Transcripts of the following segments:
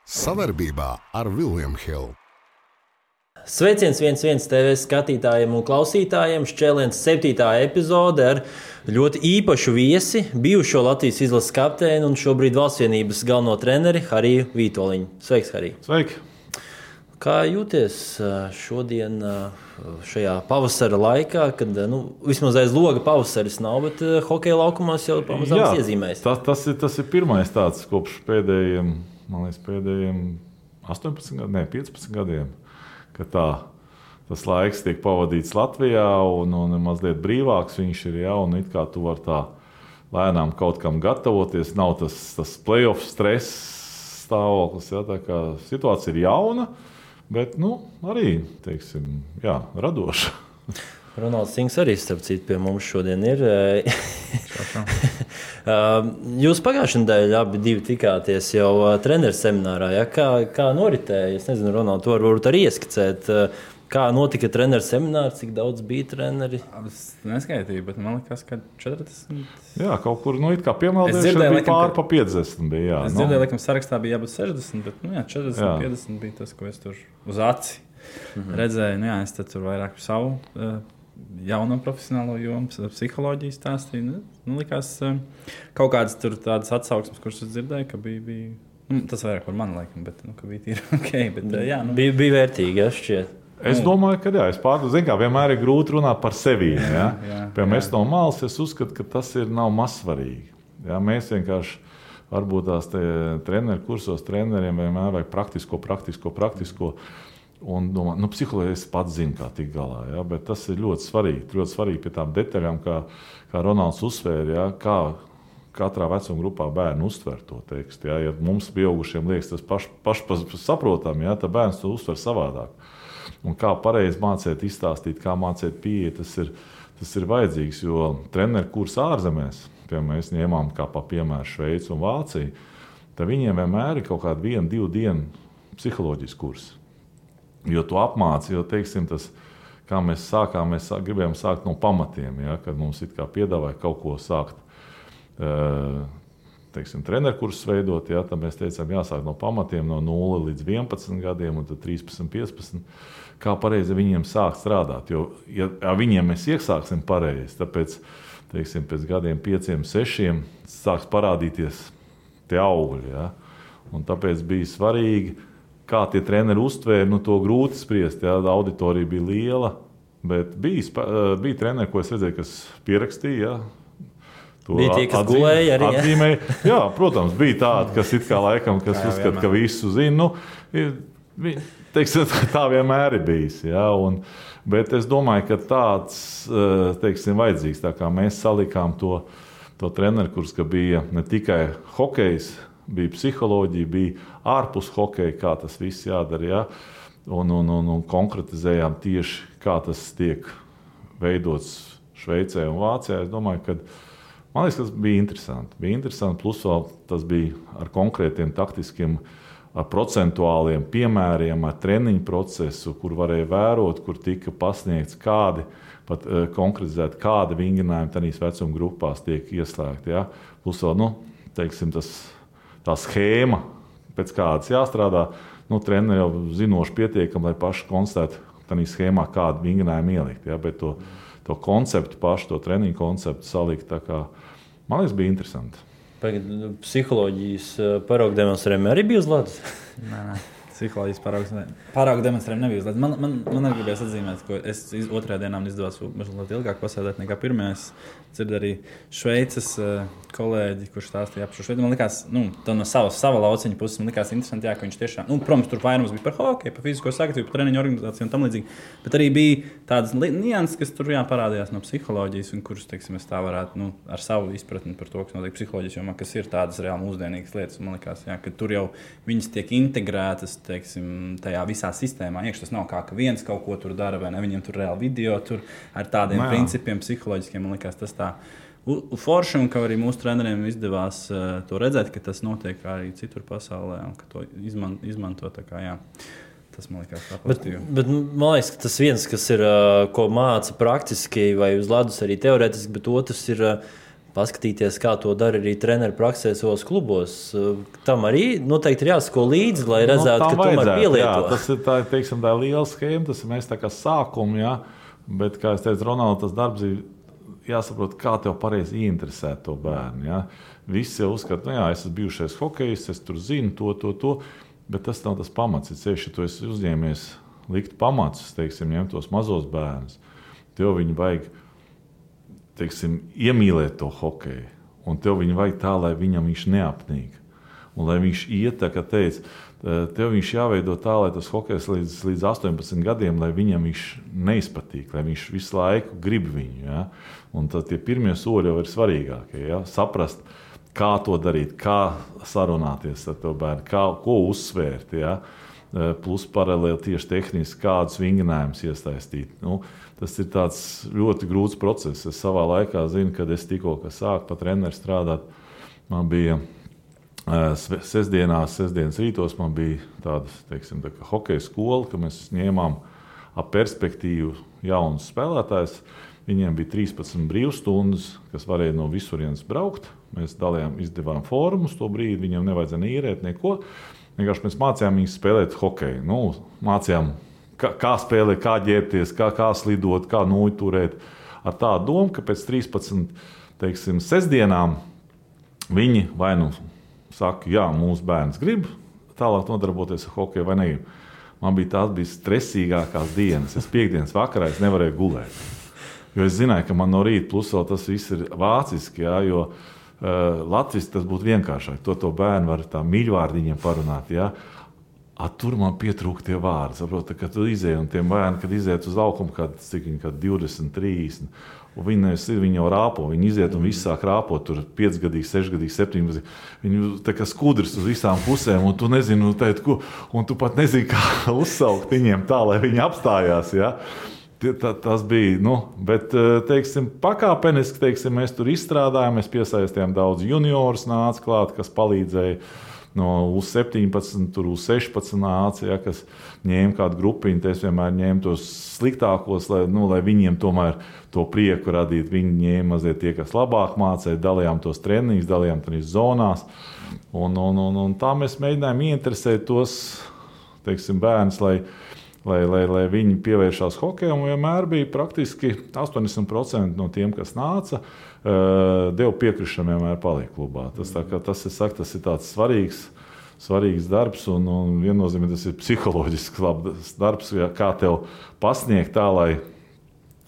Savarbībā ar William Hill. Sveiciens 11 TV skatītājiem un klausītājiem. Šķēliens 7. epizode ar ļoti īpašu viesi, bijušo Latvijas izlases kapteini un šobrīd Valstsvienības galveno treneri Hariju Vītoliņu. Sveiks, Harij! Sveiki! Kā jūties šodien šajā pavasara laikā, kad vismaz aiz loga pavasaris nav, bet hokeja laukumos jau pamazām iezīmējas? Tas ir pirmais tāds kopš pēdējiem 18 gadiem, 15 gadiem, ka tas laiks tiek pavadīts Latvijā un mazliet brīvāks viņš ir, un it kā tu vari tā lēnām kaut kam gatavoties, nav tas playoff stress stāvoklis, tā kā situācija ir jauna, bet arī, teiksim, radoša. Ronalds Sings arī, starp citu, pie mums šodien ir. Jūs pagājušajā nedēļā abi tikāties jau treneru seminārā. Ja? Kā noritēja? Es nezinu, Ronald, to varbūt arī ieskicēt. Kā notika treneru seminārs, cik daudz bija treneri? Es neskaitīju, bet man liekas, ka 40. Jā, kaut kur it kā piemēldējuši bija pār pa 50. Bija, es dzirdēju, laikam sarakstā bija jābūt 60, bet 40, 50 bija tas, ko es tur uz aci redzēju. Es tur vairāk savu jauno profesionālo jomu, psiholoģiju stāstīju. Likās kaut kādas tur tādas atsauksmes, kuras es dzirdēju, ka bija tas vairāk par mani, laikam, bet ka bija tīri ok. Bet, bija vērtīgi, šķiet. Es domāju, ka es pārdodu, kā vienmēr ir grūti runāt par sevi. Piemēram, es no malas uzskatu, ka tas nav mazsvarīgi. Mēs vienkārši varbūt tās treneru kursos treneriem vienmēr vajag praktisko. Un domāju, psiholoģija es pats zinu, kā tikt galā. Bet tas ir ļoti svarīgi pie tām detaļām, kā Ronalds uzsvēra, kā katrā vecuma grupā bērni uztver to tekstu. Ja mums pieaugušiem liekas tas pašsaprotam, tad bērns to uztver savādāk. Un kā pareizi mācīt, izstāstīt, kā mācīt pieeja, tas ir vajadzīgs. Jo treneru kurs ārzemēs, piemēram, mēs ņēmām kā pa piemēru Šveici un Vāciju, tad viņiem vienmēr ir kaut kāda 1-2 dienu psiholoģijas kurs. Jo tu apmāci, teiksim, tas, kā mēs sākām, mēs gribējām sākt no pamatiem, kad mums it kā piedāvāja kaut ko sākt, teiksim, treneru kursus veidot, tad mēs teicām, jāsāk no pamatiem, no 0 līdz 11 gadiem, un tad 13, 15. Kā pareizi viņiem sākt strādāt. Jo, ja viņiem mēs iesāksim pareizi, tāpēc, teiksim, pēc gadiem 5, 6 sāks parādīties tie augļi. Un tāpēc bija svarīgi, kā tie treneri uztvēra, to grūti spriest. Auditorija bija liela, bet bija treneri, ko es redzēju, kas pierakstīja. Bija tie, kas gulēja arī. Atzīmēja. Jā, protams, bija tādi, kas it kā laikam, kas uzskata, ka visu zina. Teiksim, tā vienmēr ir bijis. Bet es domāju, ka tāds, teiksim, vajadzīgs. Tā kā mēs salikām to treneru kurs, ka bija ne tikai hokejs, bija psiholoģija, bija ārpus hokeja, kā tas viss jādara. Un konkretizējām tieši, kā tas tiek veidots Šveicē un Vācijā. Es domāju, ka man liekas, tas bija interesanti. Plus vēl tas bija ar konkrētiem taktiskiem, ar procentuāliem piemēriem, ar treniņu procesu, kur varēja vērot, kur tika pasniegts kādi, pat konkretizēti, kādi vingrinājumi tādīs vecuma grupās tiek ieslēgti. Plus vēl, teiksim, tā schēma, pēc kādas jāstrādā, treneri jau zinoši pietiekami, lai paši konstatētu tādā schēmā, kādu vingrinājumu ielikt. Bet to konceptu pašu, to treniņu konceptu salikt, tā kā, man liekas, bija interesanti. Psiholoģijas paraugu demonstrējumi arī bija uz ledus? Nē. Psiholoģijas paraugu demonstrējumi nebija uz ledus. Man arī gribējās atzīmēt, ka es otrajā dienā izdevās mazliet ilgāk pasēdēt nekā pirmajā. Es dzirdu arī Šveices kolēģi, kurš stāstīja par šo Šveici. Man likās, no sava lauciņa puses, man likās interesanti, ka viņš tiešām, protams, tur vairums bija par hokeju, par fizisko sagatavotību, par treniņu organizāciju un tam līdzīgi. Bet arī bija tādas nianses, kas tur parādījās no psiholoģijas, un kuras, teiksim, es tā varētu ar savu izpratni par to, kas notiek psiholoģijas jomā, kas ir tādas reāli mūsdienīgas lietas. Man likās, ka tur jau viņas tiek integrētas, teiksim, tajā visā sistēmā. Tas nav kā, ka viens kaut ko tur dara, vai ne? Viņiem tur reāli video tur ar tādiem principiem psiholoģiskiem. Man likās, tas tā forši, un ka arī mūsu treneriem izdevās to redzēt, ka tas notiek arī citur pasaulē, un ka to izmanto tā kā, tas man liekas tā pozitīvi. Bet man liekas, ka tas viens, kas ir, ko māca praktiski vai uz ledus arī teorētiski, bet otrs ir paskatīties, kā to dara arī treneru praksē savos klubos. Tam arī noteikti ir jāsako līdzi, lai redzētu, ka tomēr pielieto. Jā, tas ir tā, teiksim, tā liela schēma, tas ir mēs tā kā sākumi, jā, bet, kā es teicu, Ronalds, tas darbs ir jāsaprot, kā tev pareizi ieinteresēt to bērnu, jā. Visi jau uzskata, jā, es esmu bijušais hokejs, es tur zinu to, bet tas nav tas pamats, ja ceļš, ja tu esi uzņēmies likt pamatus, teiksim, ņemt tos mazos bērnus, tev viņi vajag, teiksim, iemīlēt to hokeju, un tev viņu vajag tā, lai viņam viņš neapnīk. Un lai viņš iet, tā kā teica, tev viņš jāveido tā, lai tas hokejs līdz 18 gadiem, lai viņam viņš neizpatīk, lai viņš visu laiku grib viņu. Ja? Un tad tie pirmie soļi jau ir svarīgākie. Ja? Saprast, kā to darīt, kā sarunāties ar to bērnu, ko uzsvērt. Ja? Plus paralēli tieši tehniski, kādus vingrinājumus iesaistīt. Tas ir tāds ļoti grūts process. Es savā laikā zinu, kad es tikko sāku pat treneru strādāt, man bija sestdienas rītos, man bija tāda, teiksim, tā kā hokeja skola, ka mēs ņēmām ap perspektīvu jaunus spēlētājus. Viņiem bija 13 brīvstundas, kas varēja no visurienes braukt. Mēs izdevām formus to brīdi, viņiem nevajadzēja īrēt neko. Vienkārši mēs mācījām viņus spēlēt hokeju. Mācījām, kā spēlēt, kā ģērbties, kā slidot, kā noturēt. Ar tādu domu, ka pēc 13, teiksim, sestdienām viņi vai saka, jā, mūsu bērns grib tālāk nodarboties ar hokeju vai negrib. Man bija stresīgākās dienas. Es piekdienas vakarā nevarēju gulēt. Jo es zināju, ka man no rīta plus vēl tas viss ir vāciski, jā, jo Latvijas tas būtu vienkāršāk. To bērnu var tā mīļvārdiņiem parunāt. Jā. Tur man pietrūka tie vārdi. Saprot, kad tu izēji un tiem bērni, kad iziet uz laukumu, kad 20, 30, un viņi jau rāpo. Viņi iziet un visi sāk rāpot, tur 5 gadīgi, 6 gadīgi, 7 gadīgi. Viņi tā kā skudrs uz visām pusēm, un tu nezini, un tu pat nezini, kā uzsaukt viņiem tā, lai viņi apstājās. Ja? Tas bija, bet, teiksim, pakāpeniski, teiksim, mēs tur izstrādājām, mēs piesaistījām daudz juniorus nāca klāt, kas palīdzēja no U17, tur U16 nāca, ja, kas ņēma kādu grupiņu, es vienmēr ņēmu tos sliktākos, lai viņiem tomēr to prieku radīt. Viņi ņēma mazliet tie, kas labāk mācīja, dalījām tos treniņus, dalījām tās zonās, un tā mēs mēģinājām ieinteresēt tos, teiksim, bērnus, lai viņi pievēršās hokejam, un vienmēr bija praktiski 80% no tiem, kas nāca, deva piekrišanu vienmēr paliek klubā. Tas ir tāds svarīgs darbs, un viennozīmīgi tas ir psiholoģisks labs darbs, kā tev pasniegt tā, lai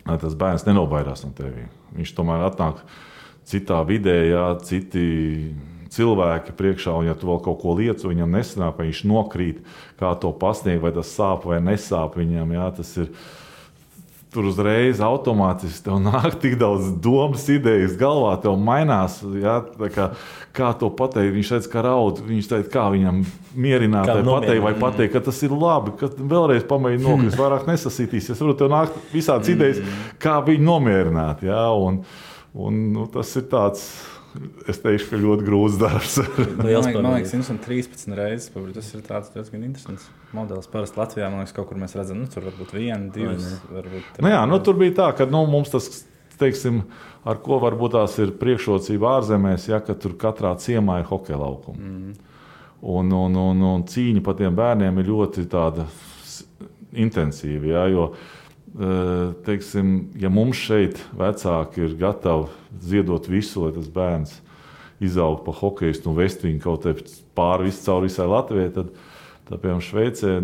tas bērns nenobaidās no tevi. Viņš tomēr atnāk citā vidē, jā, citi cilvēki priekšā, un ja tu vēl kaut ko lietas, viņam nesanāk, vai viņš nokrīt, kā to pasniegt, vai tas sāp vai nesāp viņam, jā, tas ir tur uzreiz automātiski tev nāk tik daudz domas, idejas galvā, tev mainās, jā, kā to pateikt, viņš teica, ka raud, viņš teica, kā viņam mierināt, vai pateikt, ka tas ir labi, ka vēlreiz pamēģi nokrist, vairāk nesasītīsies, varbūt tev nāk visādas idejas, kā viņu nomierināt, jā, un tas ir tāds, es teikšu, ka ļoti grūts darbs. Man liekas, 113 reizes, tas ir tāds diezgan interesants modelis. Parasti Latvijā, man liekas, kaut kur mēs redzam, tur varbūt 1, 2, varbūt 3. Tur bija tā, ka mums tas, teiksim, ar ko varbūt tās ir priekšrocība ārzemēs, ja, ka tur katrā ciemā ir hokeja laukuma. Un cīņa par tiem bērniem ir ļoti tāda intensīva, ja, jo teiksim, ja mums šeit vecāki ir gatavi ziedot visu, lai tas bērns izaug pa hokejistu un vest viņu kaut pāri cauri visai Latvijai, tad piemēram Šveicē,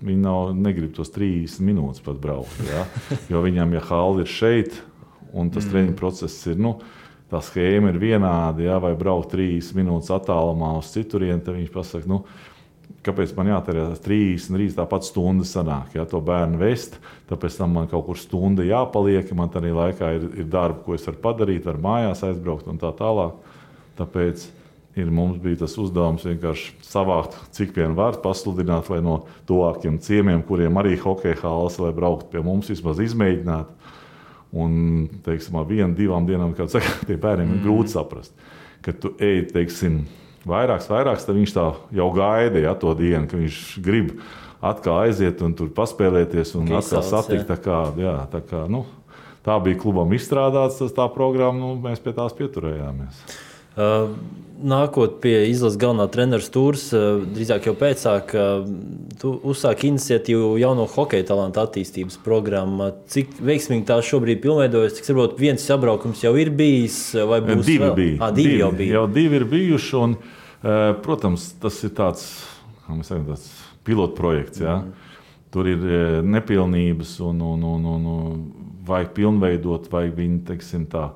viņi negrib tos 30 minūtes pat braukt, ja? Jo viņam, ja halli ir šeit un tas treniņu process ir, tā schēma ir vienāda, ja? Vai braukt 30 minūtes attālumā uz citurieni, tad viņš pasaka, kāpēc man jātērē 30, tāpat stunda sanāk, ja, to bērnu vest, tāpēc tam man kaut kur stunda jāpaliek, man tādā laikā ir darba, ko es varu padarīt, varu mājās aizbraukt un tā tālāk. Tāpēc mums bija tas uzdevums vienkārši savākt, cik vien var pasludināt, lai no tuvākiem ciemiem, kuriem arī hokeja halles, lai braukt pie mums, vismaz izmēģināt. Un, teiksim, ar 1, 2 dienām, kā saka, tie bērniem ir grūti saprast, ka tu ej, teiksim, vairāks, tad viņš tā jau gaida, ja, to dienu, ka viņš grib atkal aiziet un tur paspēlēties un atkal satikt. tā bija klubam izstrādāts, tā programma, mēs pie tās pieturējāmies. Nākot pie izlases galvenā trenera stūres, drīzāk jau pēcāk, tu uzsāki iniciatīvu jauno hokeja talantu attīstības programmu. Cik veiksmīgi tā šobrīd pilnveidojas? Cik varbūt viens sabraukums jau ir bijis, vai būs divi vēl? Bija. Divi jau bija. Jau divi ir bijuši, un, protams, tas ir tāds, kā mēs sakam, tāds pilotprojekts, ja? Tur ir nepilnības un vajag pilnveidot, vajag viņi, teiksim tā,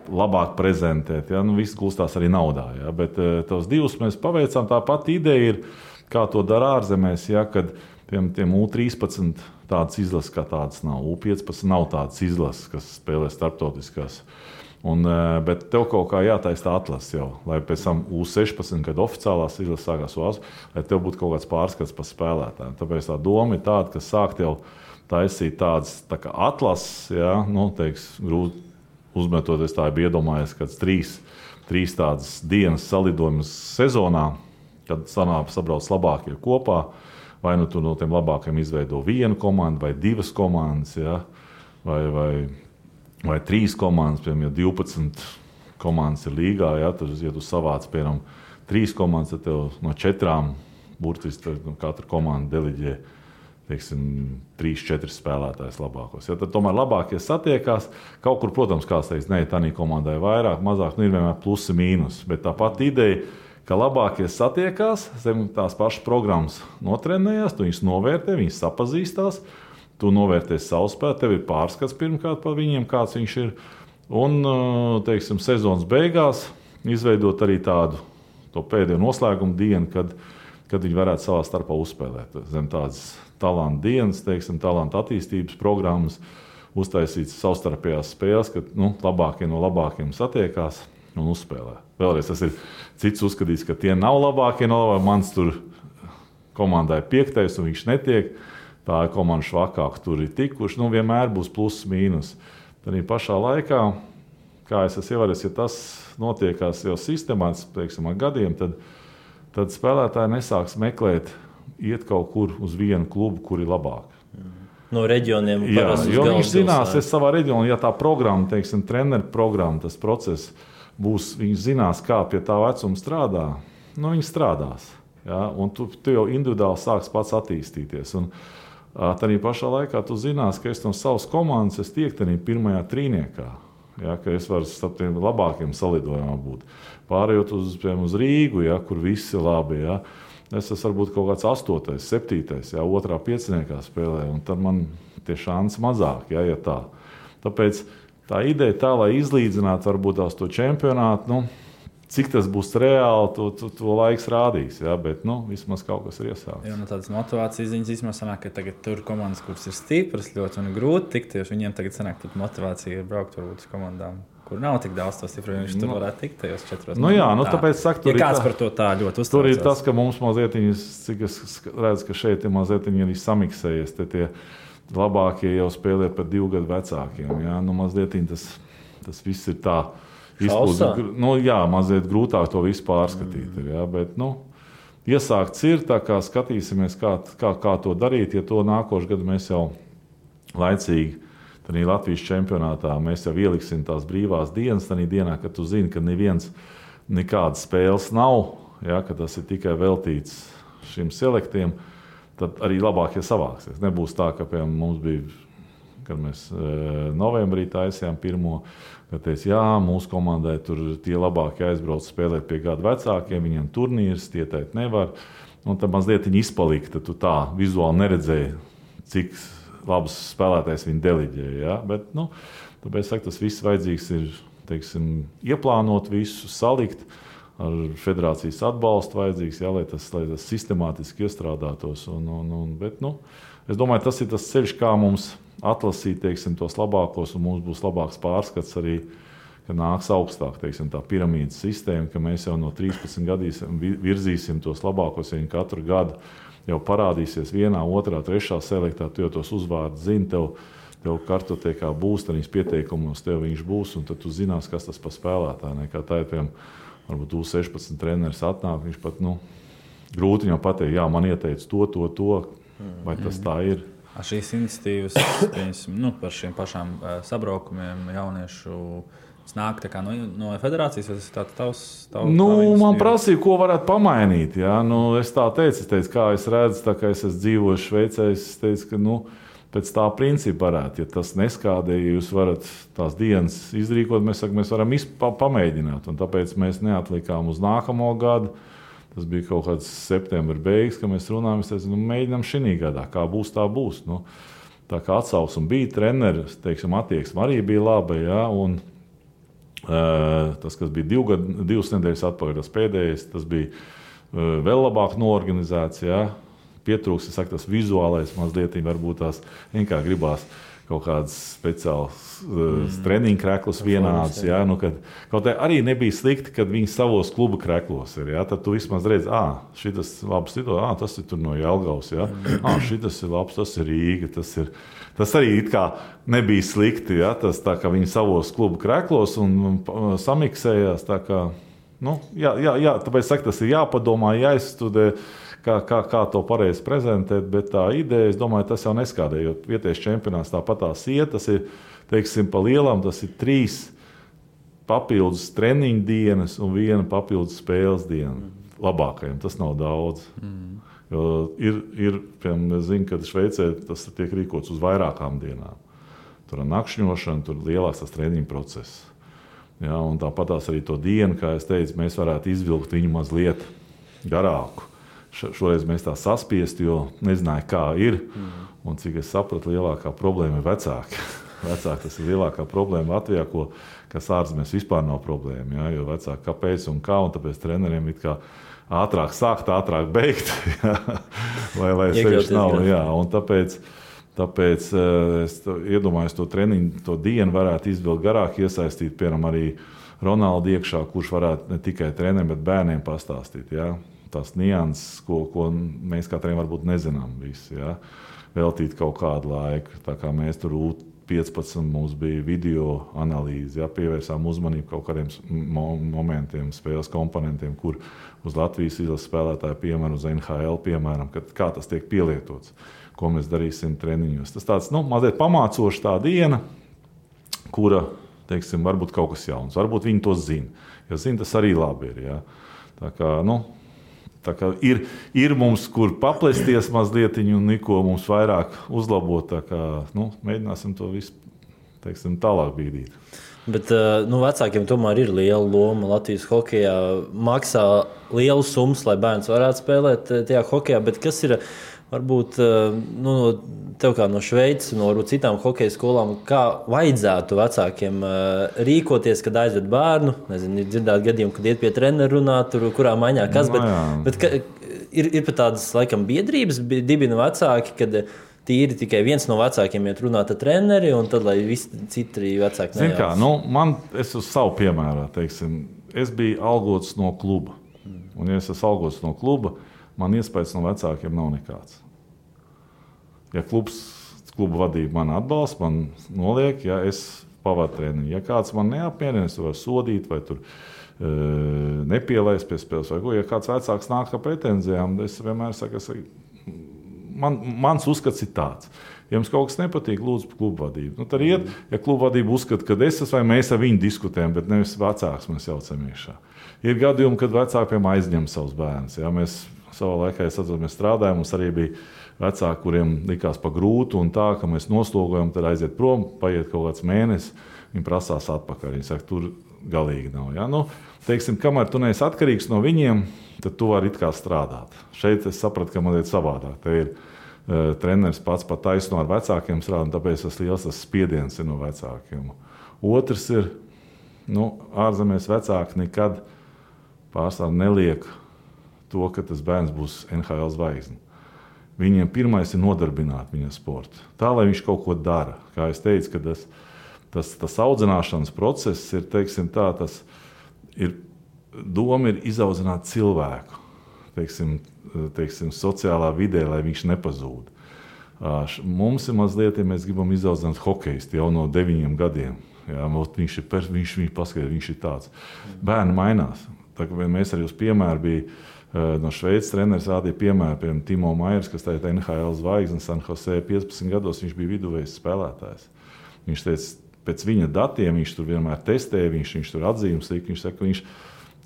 labāk prezentēt. Ja? Viss gulstās arī naudā. Ja? Bet tos divus mēs paveicām. Tā pati ideja ir, kā to dara ārzemēs, ja? Kad tiem U13 tādas izlases kā tādas nav. U15 nav tādas izlases, kas spēlē starptautiskās. Bet tev kaut kā jātaisa tā atlase jau, lai pēc tam U16, kad oficiālās izlases sākās UAS, lai tev būtu kaut kāds pārskats par spēlētājiem. Tāpēc tā doma ir tāda, ka sākt jau taisīt tādas tā kā atlases, ja? Grūti uzmetoties, tā ir iedomājies, kad trīs tādas dienas salidojumus sezonā, kad sabrauc labākie kopā, vai nu tu no tiem labākiem izveido vienu komandu, vai divas komandas, ja? vai trīs komandas, piemēram, ja 12 komandas ir līgā, ja tu savāc, piemēram, 3 komandas, tad tev no 4 burtiski katra komanda deliģē 3-4 spēlētājs labākos. Ja, tad tomēr labākie satiekās. Kaut kur, protams, kāds teiks, ne, tā komandai vairāk, mazāk, ir vienmēr plusi mīnus. Bet tā pati ideja, ka labākie satiekās, zem tās pašas programmas notrenējās, tu viņus novērtē, viņus sapazīstās, tu novērtēsi savu spēli, tev ir pārskats pirmkārt par viņiem, kāds viņš ir. Un, sezonas beigās izveidot arī tādu to pēdējo noslēgumu dienu, kad viņi varētu savā starpā uzspēlēt. Zem tādas talantu dienas, talantu attīstības programmas, uztaisīts savstarpējās spēles, kad labākie no labākiem satiekās un uzspēlē. Vēlreiz tas ir cits uzskatīts, ka tie nav labākie no labākiem. Mans tur komandai 5. un viņš netiek. Tā ir komanda švakāk, tur ir tikuši. Vienmēr būs pluss mīnus. Tad pašā laikā, kā es esmu ievērojis, ja tas notiekās jau sistemātiski, ar gadiem, tad spēlētāji nesāks meklēt, iet kaut kur uz vienu klubu, kur ir labāk. No reģioniem parasti uz galvas. Viņš zinās, es savā reģionā, ja tā programma, treneru programma, tas process būs, viņš zinās, kā pie tā vecuma strādā, viņi strādās. Ja? Un tu jau individuāli sāks pats attīstīties. Un tādā pašā laikā tu zinās, ka es no savas komandas tiek tādā pirmajā trīniekā. Ja, ka es varu starp tiem labākiem salidojumiem būt. Pārējot uz Rīgu, ja, kur viss ir labi. Ja. Es esmu varbūt kaut kāds 8., 7., ja, 2. pieciniekā spēlē, un tad man tie šansi mazāk, ja tā. Tāpēc tā ideja tā, lai izlīdzinātu varbūt tās to čempionātu, cik tas būs reāli, to laiks rādīs. Ja, bet vismaz kaut kas ir iesākts. Jā, tādas motivācijas ziņas īstenībā sanāk, ka tagad tur komandas, kuras ir stipras, ļoti un grūti tikt, jo viņiem tagad sanāk, ka motivācija ir braukt varbūt uz komandām, kur nav tik daudz to stipru, viņš tur varētu tikt tajos 4. Tāpēc saka, tur ja kāds par to tā ļoti uztraucās. Tur ir tas, ka mums mazliet, cik es redzu, ka šeit ir mazliet arī samiksējies, tie labākie jau spēlē par 2 gadu vecākiem. Ja? Mazliet tas viss ir tā. Mazliet grūtāk to visu pārskatīt. Ja, bet, iesākts ir, tā kā skatīsimies, kā to darīt. Ja to nākošu gadu mēs jau laicīgi, tad Latvijas čempionātā mēs jau ieliksim tās brīvās dienas, tad dienā, kad tu zini, ka nekādas spēles nav, ja, ka tas ir tikai veltīts šiem selektiem, tad arī labākie savāksies. Nebūs tā, ka mums bija, kad mēs novembrī taisījām pirmo, kad teica, jā, mūsu komandai tur tie labākie aizbrauc spēlēt pie gadu vecākiem, viņiem turnīrs, tie teikt nevar. Un tad mazliet viņi izpalika, tad tu tā vizuāli neredzēji, cik labs spēlētājs viņi deliģēja. Ja? Bet, tāpēc tas viss vajadzīgs ir, ieplānot visu, salikt, ar federācijas atbalstu vajadzīgs, ja, lai tas sistemātiski iestrādātos. Bet, es domāju, tas ir tas ceļš, kā mums atlasīt tos labākos, un mums būs labāks pārskats arī, ka nāks augstāk tā piramīdas sistēma, ka mēs jau no 13 gadiem virzīsim tos labākos, ja viņi katru gadu jau parādīsies 1., 2., 3. selektā, tu jau tos uzvārdus zini, tev kartotekā būs, tad viņas pieteikumos tev viņš būs, un tad tu zinās, kas tas par spēlētāju. Kā tā ir, piemēram, varbūt U16 treneris atnāk, viņš pat, grūti viņam pateikt, jā, man ieteica to, vai tas tā ir. Šīs iniciatīvas par šiem pašām sabraukumiem jauniešu nāk no federācijas, vai tas ir tavs man prasīja, ko varētu pamainīt. Ja? Es tā teicu, kā es redzu, tā kā es esmu dzīvojis Šveicē, es teicu, ka pēc tā principa varētu. Ja tas neskādē, ja jūs varat tās dienas izrīkot, mēs varam pamēģināt. Un tāpēc mēs neatlikām uz nākamo gadu. Tas bija kaut kāds septembra beigas, kad mēs runājām. Es teicu, mēģinām šī gadā, kā būs, tā būs. Tā kā atsauksme bija, treneris, attieksme arī bija laba. Ja? Un tas, kas bija 2 nedēļas atpakaļ, tas pēdējais, tas bija vēl labāk norganizēts. Ja? Pietrūks, tas vizuālais mazliet, varbūt tās vienkārši gribās kaut kādas speciālas treniņu kreklas vienādas. Ja? Kaut arī nebija slikti, kad viņi savos klubu kreklos ir. Ja? Tad tu vismaz redzi, šitas labs situācija, tas ir tur no Jelgavas. Ja? Šitas ir labs, tas ir Rīga, tas arī it kā nebija slikti. Ja? Tas tā kā viņi savos klubu kreklos un samiksējās. Tā kā, tāpēc tas ir jāpadomā, jāizstudē. Kā to pareizi prezentēt, bet tā ideja, es domāju, tas jau neskādē, jo vietējais čempionāts tāpatās iet, tas ir, pa lielam, tas ir 3 papildus treniņu dienas un 1 papildus spēles diena. Labākajiem tas nav daudz. Jo piemēram, es zinu, ka Šveicē tas tiek rīkots uz vairākām dienām. Tur ir nakšņošana, tur lielāks tas treniņu process. Ja, un tāpatās arī to dienu, kā es teicu, mēs varētu izvilkt viņu mazliet garāku. Šoreiz mēs tā saspiesti, jo nezināju, kā ir. Un cik es sapratu, lielākā problēma ir vecāki. Vecāki tas ir lielākā problēma Latvijā, kas ārzemēs vispār nav problēma. Ja? Jo vecāki kāpēc un kā, un tāpēc treneriem it kā ātrāk sākt, ātrāk beigt. Ja? Lai sevišķi nav. Jā. Un tāpēc es iedomājos to treniņu, to dienu varētu izvilkt garāk, iesaistīt, piemēram, arī Ronaldu iekšā, kurš varētu ne tikai treneriem, bet bērniem pastāstīt. Ja? Tās nianses, ko mēs kā treneriem varbūt nezinām visi, ja? Veltīt kaut kādu laiku. Tā kā mēs tur 15 mums bija video analīze, ja? Pievērsām uzmanību kaut kādiem momentiem, spēles komponentiem, kur uz Latvijas izlases spēlētāju piemēram, uz NHL piemēram, kā tas tiek pielietots, ko mēs darīsim treniņos. Tas tāds, mazliet pamācoši tā diena, kura, varbūt kaut kas jauns, varbūt viņi to zina. Ja zina, tas arī labi ir, ja? Tā kā ir mums, kur paplesties mazliet un neko mums vairāk uzlabot. Tā kā, mēģināsim to visu, tālāk bīdīt. Bet vecākiem tomēr ir liela loma Latvijas hokejā. Maksā lielu summas, lai bērns varētu spēlēt tajā hokejā. Bet kas ir, varbūt, tev kā no Šveices, no citām hokeja skolām, kā vajadzētu vecākiem rīkoties, kad aizved bērnu? Nezinu, ir dzirdēt gadījumu, kad iet pie treneru runāt, kurā maiņā kas, bet ir pat tādas, laikam, biedrības dibina vecāki, kad tīri tikai viens no vecākiem iet runāt ar treneri, un tad, lai visi citi vecāki nejauc. Zin kā, es uz savu piemērā, es biju algots no kluba. Un, ja es esmu algots no kluba, man iespējas no vecākiem nav nekāds. Ja kluba vadība man atbalsta, man noliek, ja es pavadu treniņu. Ja kāds man neapmierina, es varu sodīt vai tur nepielaist pie spēles vai ko. Ja kāds vecāks nāk ar pretenzijām, es vienmēr saku, mans uzskats ir tāds. Ja jums kaut kas nepatīk, lūdzu kluba vadību. Tad iet, ja kluba vadība uzskata, ka es esmu vai mēs ar viņu diskutējam, bet nevis vecāks mēs jaucam iekšā. Ir gadījumi, kad vecāki aizņem savus bērnus. Ja? Mēs savā laikā, mēs strādājām, mums arī bija vecāki, kuriem likās pa grūtu un tā, ka mēs noslogojam, tad aiziet prom, paiet kaut kāds mēnesis, viņi prasās atpakaļ. Viņi saka, tur galīgi nav. Ja? Kamēr tu neesi atkarīgs no viņiem, tad tu vari it kā strādāt. Šeit es sapratu, ka man ir savādāk. Te ir treneris pats pat taisno ar vecākiem strādāt, tāpēc tas liels spiediens ir no vecākiem. Otrs ir, ārzemēs vecāki nekad pārstāv neliek to, ka tas bērns būs NHL zvaigzne. Viņiem pirmais ir nodarbināt viņa sportu. Tā, lai viņš kaut ko dara. Kā es teicu, ka tas audzināšanas process ir, doma ir izaudzināt cilvēku, sociālā vidē, lai viņš nepazūd. Mums ir mazliet, ja mēs gribam izaudzināt hokejistu jau no 9 gadiem. Jā, viņš paskatās, viņš ir tāds. Bērni mainās. Tā, mēs arī uz piemēru bija no Šveices treneris rādīja piemēru, piemēram, Timo Maiers, kas tagad NHL zvaigznes San Jose 15 gados, viņš bija viduvējs spēlētājs. Viņš teica, pēc viņa datiem viņš tur vienmēr testēja, viņš tur atzīmes lika, viņš saka,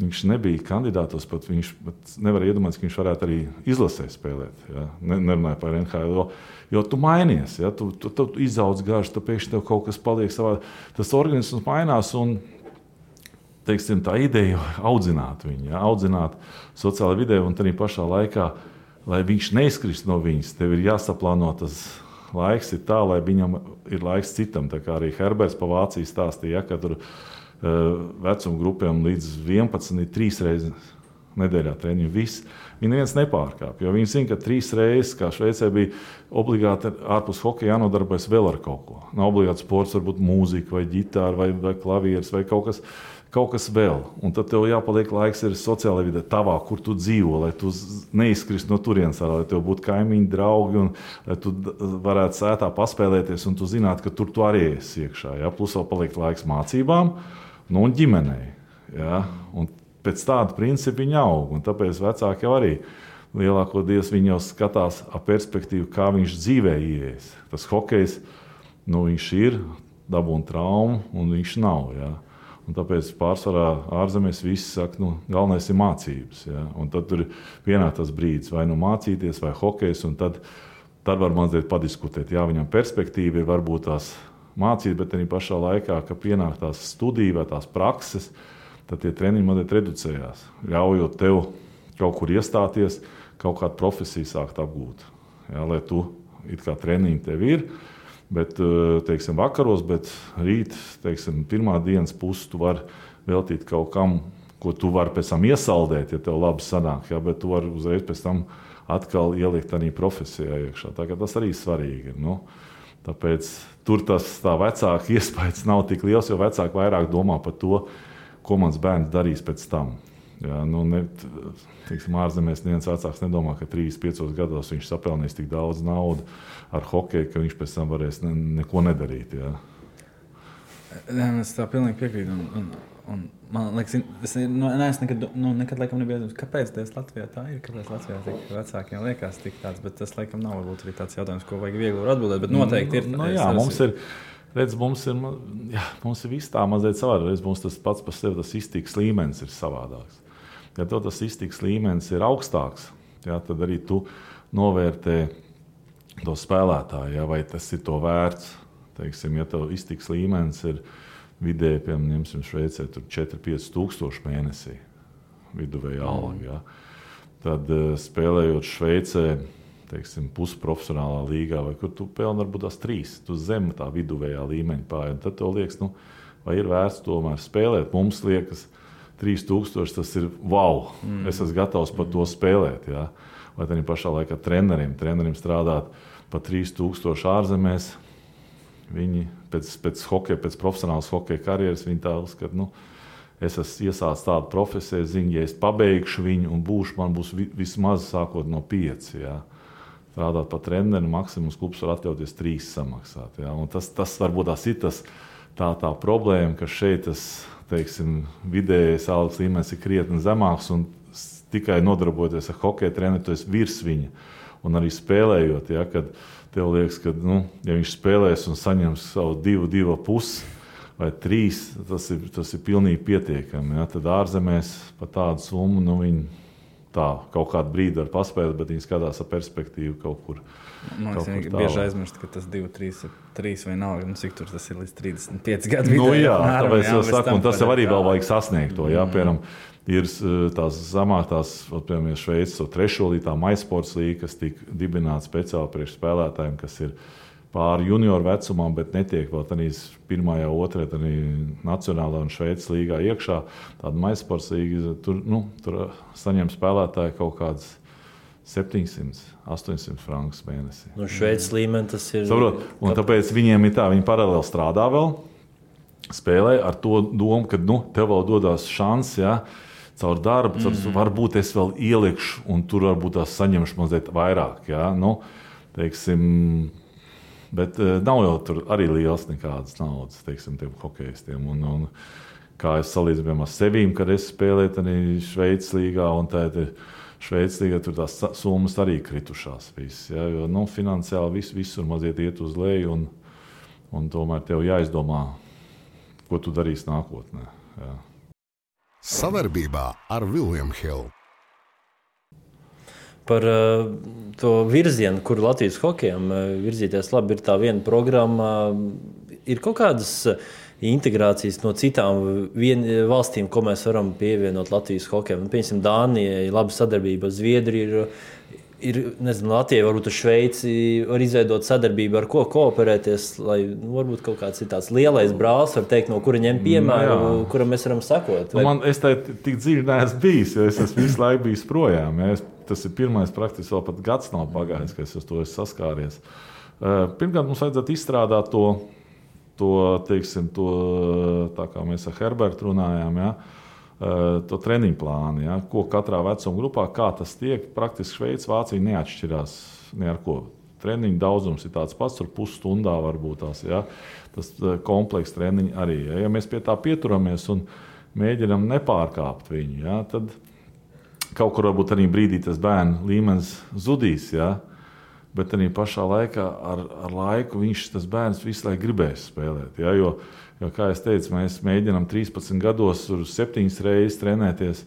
viņš nebija kandidātos, pat viņš nevar iedomāties, ka viņš varētu arī izlasē spēlēt. Ja? Nerunāja par NHL, jo tu mainies, ja? tu izaudz garš, tu pēkšņi tev kaut kas paliek savā. Tas organisms mainās un, teiksim, tā ideja audzināt viņu, ja? Audzināt sociālajā vidē un arī pašā laikā, lai viņš neizkrist no viņas, tev ir jāsaplāno tas laiks ir tā, lai viņam ir laiks citam. Tā kā arī Herberts pa Vāciju stāstīja, ja, ka tur vecuma grupiem līdz 11 ir 3 reizes nedēļā treniņu. Viņi neviens nepārkāp, jo viņi zina, ka 3 reizes, kā Šveicē bija obligāti ārpus hokeja jānodarbojas vēl ar kaut ko. Nav obligāti sports, varbūt mūzika vai ģitāra vai klavieres vai kaut kas vēl. Un tad tev jāpaliek laiks ir sociālajā vidē tavā, kur tu dzīvo, lai tu neizkrist no turienes, lai tev būtu kaimiņi, draugi un lai tu varētu sētā paspēlēties un tu zinātu, ka tur tu arī esi iekšā. Ja? Plus vēl paliek laiks mācībām. Un ģimenei. Ja? Un pēc tāda principa viņi aug. Un tāpēc vecāki jau arī lielākoties viņi jau skatās ar perspektīvu, kā viņš dzīvē ieies. Tas hokejs, viņš ir, dabūna traumu, un viņš nav. Ja? Un tāpēc pārsvarā ārzemēs visi saka, galvenais ir mācības. Ja? Un tad tur pienāk tas brīdis, vai mācīties, vai hokejs, un tad var mazliet padiskutēt. Jā, viņam perspektīva ir varbūt tās mācīt, bet arī pašā laikā, ka pienāk tās studija vai tās prakses, tad tie treniņi mazliet reducējās, ļaujot tev kaut kur iestāties, kaut kādu profesiju sākt apgūt. Ja, lai tu it kā treniņi tev ir, bet, teiksim, vakaros, bet rīt, teiksim, pirmā dienas pusi tu vari veltīt kaut kam, ko tu vari pēc tam iesaldēt, ja tev labi sanāk, ja, bet tu vari uzreiz pēc tam atkal ielikt arī profesijā iekšā. Tā kā tas arī svarīgi ir. Tāpēc tur tā vecāka iespējas nav tik liels, jo vecāki vairāk domā par to, ko mans bērns darīs pēc tam. Ja, teiksim, ārzemēs neviens vecāks nedomā, ka 3-5 gados viņš sapelnīs tik daudz naudu ar hokeju, ka viņš pēc tam varēs neko nedarīt. Ja. Es tā pilnīgi piekrītu. Un man liekas, es nekad laikam nebiju iedomājies, kāpēc tas Latvijā tā ir, kāpēc Latvijā tik vecākiem liekas tik tāds, bet tas laikam nav varbūt arī tāds jautājums, ko vajag viegli atbildēt, bet noteikti ir. Mums ir viss tā mazliet savādāk, mums tas pats par sevi tas iztikas līmenis ir savādāks. Ja tev tas iztikas līmenis ir augstāks, ja, tad arī tu novērtē to spēlētāju, ja, vai tas ir to vērts. Teiksim, ja tev iztikas līmenis ir vidēji, piemēram, Šveicē 4-5 tūkstoši mēnesī viduvēja alga. Ja. Tad spēlējot Šveicē, teiksim, pusprofesionālā līgā, vai kur tu pelni varbūt tās 3, tu zem tā viduvējā līmeņa pāri. Tad tev liekas, vai ir vērts tomēr spēlēt. Mums liekas, 3000 tas ir wow, es esmu gatavs par to spēlēt. Ja. Vai tad pašā laikā trenerim strādāt pa 3000 ārzemēs. Viņi pēc hokeja, pēc profesionālas hokeja karjeras, viņi tā uzskata, es esmu iesācis tādu profesiju, zinu, ja es pabeigšu viņu un man būs vismaz sākot no 5. Ja. Strādāt pa treneru, maksimums klubs var atļauties 3 samaksāt. Ja. Un tas varbūt tās ir tā problēma, ka šeit tas, teiksim, vidējais algas līmenis ir krietni zemāks un tikai nodarbojoties ar hokeja treneru, tu esi virs viņa. Un arī spēlējot, ja, kad tev liekas, ka, ja viņš spēlēs un saņems savu 2,5 vai 3, tas ir pilnīgi pietiekami. Ja. Tad ārzemēs par tādu summu, viņi tā kaut kādu brīdi var paspēlēt, bet viņi skatās ar perspektīvu kaut kur. Man liekas, bieži aizmirst, ka tas 2-3 vai nav, cik tur tas ir līdz 35 gadu vidē. Jā, tāpēc es saku, un tas jau arī vēl vajag sasniegt to, jā, piemēram, ir tās zamāktās, piemēram, Šveices 3. līgā MySports līga, kas tika dibināta speciāli priekš spēlētājiem, kas ir pāri junioru vecumam, bet netiek vēl tādīs 1. 2. arī nacionālā un Šveices līgā iekšā. Tāda MySports līga, tur saņem spēlētāji kaut kādas 700-800 frankus mēnesī. No Šveices līmeni tas ir. Saprot, un tāpēc viņiem ir tā, viņi paralēli strādā vēl, spēlē ar to domu, ka tev vēl dodās šans, ja, caur darbu, varbūt es vēl ielikšu, un tur varbūt tās saņemšu mazliet vairāk. Ja, teiksim, bet nav jau tur arī liels nekādas naudas, teiksim, tiem hokejistiem. Un kā es salīdzinu ar sevīm, kad es spēlēju arī Šveices līgā, un tā ir Šveicis tagad tur tās summas arī kritušās. Viss, ja, jo finansiāli visur maziet iet uz leju, un tomēr tev jāizdomā, ko tu darīsi nākotnē. Ja. Savarbībā ar William Hill. Par to virzienu, kur Latvijas hokejam virzīties labi, ir tā viena programma. Ir kaut kādas integrācijas no citām valstīm, ko mēs varam pievienot Latvijas hokejam. Piemēram, Dānijai laba sadarbība, Zviedrija ir nezinu, Latvijai, varbūt ar Šveici var izveidot sadarbību, ar ko kooperēties, lai varbūt kaut kāds ir tāds lielais brālis, var teikt, no kura ņem piemēru, kuram mēs varam sekot. Es tā tik dziļi neesmu bijis, jo es esmu visu laiku bijis projām. Ja. Tas ir pirmais praktiski, vēl pat gads nav pagājis, ka es uz to esmu saskāries. Pirmkārt, mums vajadzētu izstrādāt to, tā kā mēs ar Herbertu runājām, ja, to treniņu plānu, ja, ko katrā vecuma grupā, kā tas tiek. Praktiski Šveice, Vācija neatšķirās ne ar ko. Treniņu daudzums ir tāds pats, tur pusstundā varbūt tās, ja, tas komplekss treniņi arī. Ja mēs pie tā pieturamies un mēģinam nepārkāpt viņu, ja, tad kaut kur varbūt arī brīdī tas bērnu līmenis zudīs, ja, bet arī pašā laikā ar laiku tas bērns visu laiku gribēs spēlēt. Ja, jo, kā es teicu, mēs mēģinām 13 gados 7 reizes trenēties,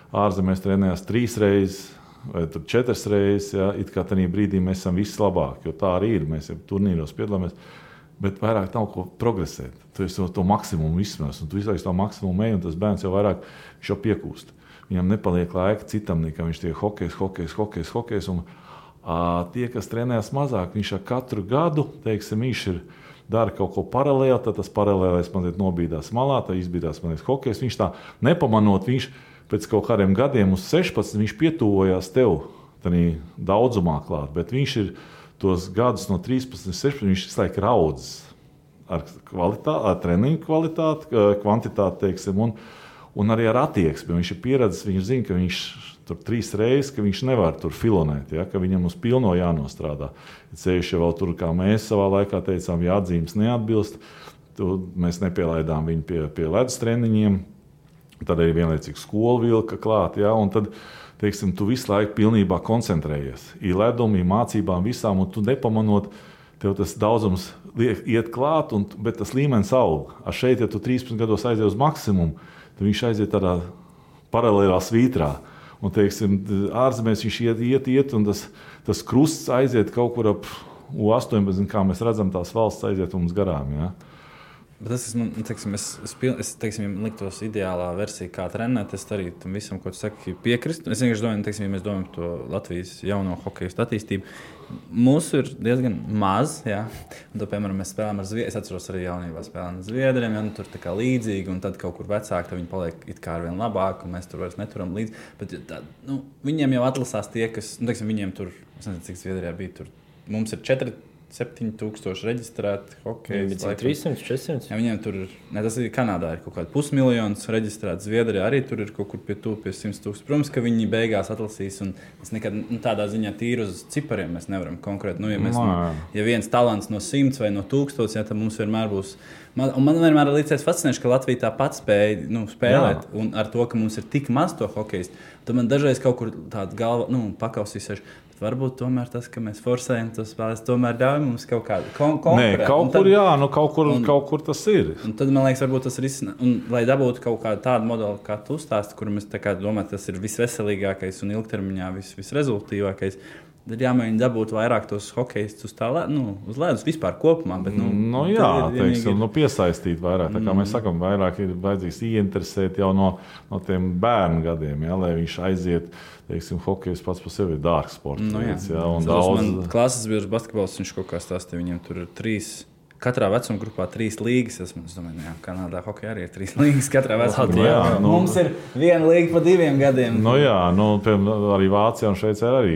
ārzemēs trenējās 3 reizes vai 4 reizes. Ja, it kā tajā brīdī mēs esam vislabākie, jo tā arī ir. Mēs jau turnīros piedalāmies, bet vairāk nav ko progresēt. Tu esi to maksimumu izsmēs, un tu visu laiku to maksimumu ej, un tas bērns jau vairāk šo piekūst. Viņam nepaliek laika citam, nekā viņš tiek hokejs. Un tie, kas trenējas mazāk, viņš ar katru gadu, teiksim, viņš dara kaut ko paralēli, tad tas paralēlais mazliet nobīdās malā, tad izbīdās mazliet hokejs. Viņš tā nepamanot, viņš pēc kaut kādiem gadiem uz 16, viņš pietuvojās tev tādā daudzumā klāt, bet viņš ir tos gadus no 13, 16, viņš visu laiku raudzes ar treniņu kvalitāti, kvantitāti, teiksim, un arī ar attieksmi. Viņš ir pieredzējis, viņš zina, ka viņš tur 3 reizes, ka viņš nevar tur filonēt, ja, ka viņam uz pilno jānostrādā. Ceļš jau vēl tur, kā mēs savā laikā teicām, ja atzīmes neatbilst, mēs nepielaidām viņu pie ledus treniņiem, tad arī vienlaicīgi skolu vilka klāt, ja, un tad, teiksim, tu visu laiku pilnībā koncentrējies. Ir ledumi, ir mācībām visām, un tu nepamanot, tev tas daudzums iet klāt, bet tas līmenis aug. Šeit, ja tu 13 gados aizies uz maksimumu, tad viņš aiziet tādā paralēlā svītrā. Un, teiksim, ārzemēs viņš iet, un tas krusts aiziet kaut kur ap U18, kā mēs redzam, tās valsts aiziet mums garām. Ja? Bet tas ir, teiksim, es teiksim, ja liktos ideālā versija, kā trenēt, es arī tam visam, ko tu saki, piekrist. Es vienkārši domāju, teiksim, ja mēs domājam par to Latvijas jauno hokejistu attīstību, mūsu ir diezgan maz, ja? Un to, piemēram, mēs spēlējam ar Zviedriem, es atceros arī jaunībā spēlējam ar Zviedriem, ja? Tur tā kā līdzīgi, un tad kaut kur vecāki, tad viņi paliek it kā arvien labāk, un mēs tur vairs neturam līdzi. Bet tā, viņiem jau atlasās tie, kas, teiksim, viņiem tur, es nezinu, cik Zviedrijā bija, tur mums ir 7,000 reģistrēti hokeja. 300, 400. Ja, viņiem tur, tas ir Kanādā, ir kaut kāda 500,000 reģistrēti. Zviedrijā arī tur ir kaut kur pie 100,000. Protams, ka viņi beigās atlasīs, un mēs nekad tādā ziņā tīri uz cipariem mēs nevaram konkrēti. Ja viens talants no 100 vai no 1000, ja, tad mums vienmēr būs. Un man vienmēr ir līdzies fascinējoši, ka Latvija tāpat spēja spēlēt, jā. Un ar to, ka mums ir tik maz to hokejistu, tad man dažreiz kaut kur tāda galva pakausīsies. Varbūt tomēr tas, ka mēs forsējam tos spēlēs, tomēr ļauj mums kaut kādu konkurēt. Nē, kaut kur jā, kaut kur tas ir. Un tad, man liekas, varbūt tas ir un lai dabūtu kaut kādu tādu modeli, kā tu stāsti, kuru mēs tā kā domājam, tas ir visveselīgākais un ilgtermiņā visrezultīvākais. Tad jāmēģina dabūt vairāk tos hokejistus uz ledus vispār kopumā. Bet, teiksim, piesaistīt vairāk. Tā kā mēs sakam, vairāk ir vajadzīgs ieinteresēt jau no tiem bērnu gadiem, ja, lai viņš aiziet. Teiksim, hokejs pats par sevi ir dārgs sports. Man klases biedrs basketbols, viņš kaut kā stāstīja, viņiem tur ir 3, katrā vecuma grupā 3 līgas. Es domāju, jā, Kanādā hokejā arī ir 3 līgas katrā vecuma grupā. Mums ir 1 līga pa 2 gadiem. Arī Vācijā un Šveicē arī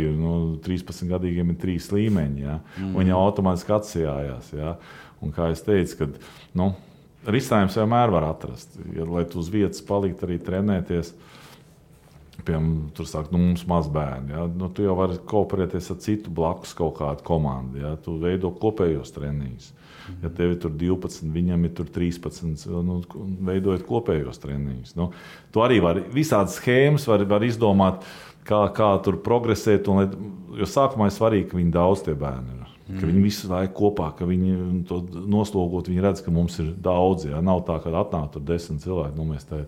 13-gadīgiem ir 3 līmeņi. Ja? Viņi automātiski atsijājās. Ja? Un kā es teicu, ka risinājums vienmēr var atrast. Ja, lai tu uz vietas palikt arī trenēties, piemēram, tur sāk, mums maz bērni. Ja? Tu jau vari kooperēties ar citu blakus kaut kādu komandu. Ja? Tu veido kopējos treniņus. Ja tev ir tur 12, viņam ir tur 13, veidojot kopējos treniņus. Tu arī vari visādas schēmas var izdomāt. kā tur progresēt. Jo sākumā ir svarīgi, ka viņi daudz tie bērni ir. Ka viņi visu laiku kopā, ka viņi to noslogot, viņi redz, ka mums ir daudz. Ja? Nav tā, ka atnāk tur 10 cilvēki, mēs tā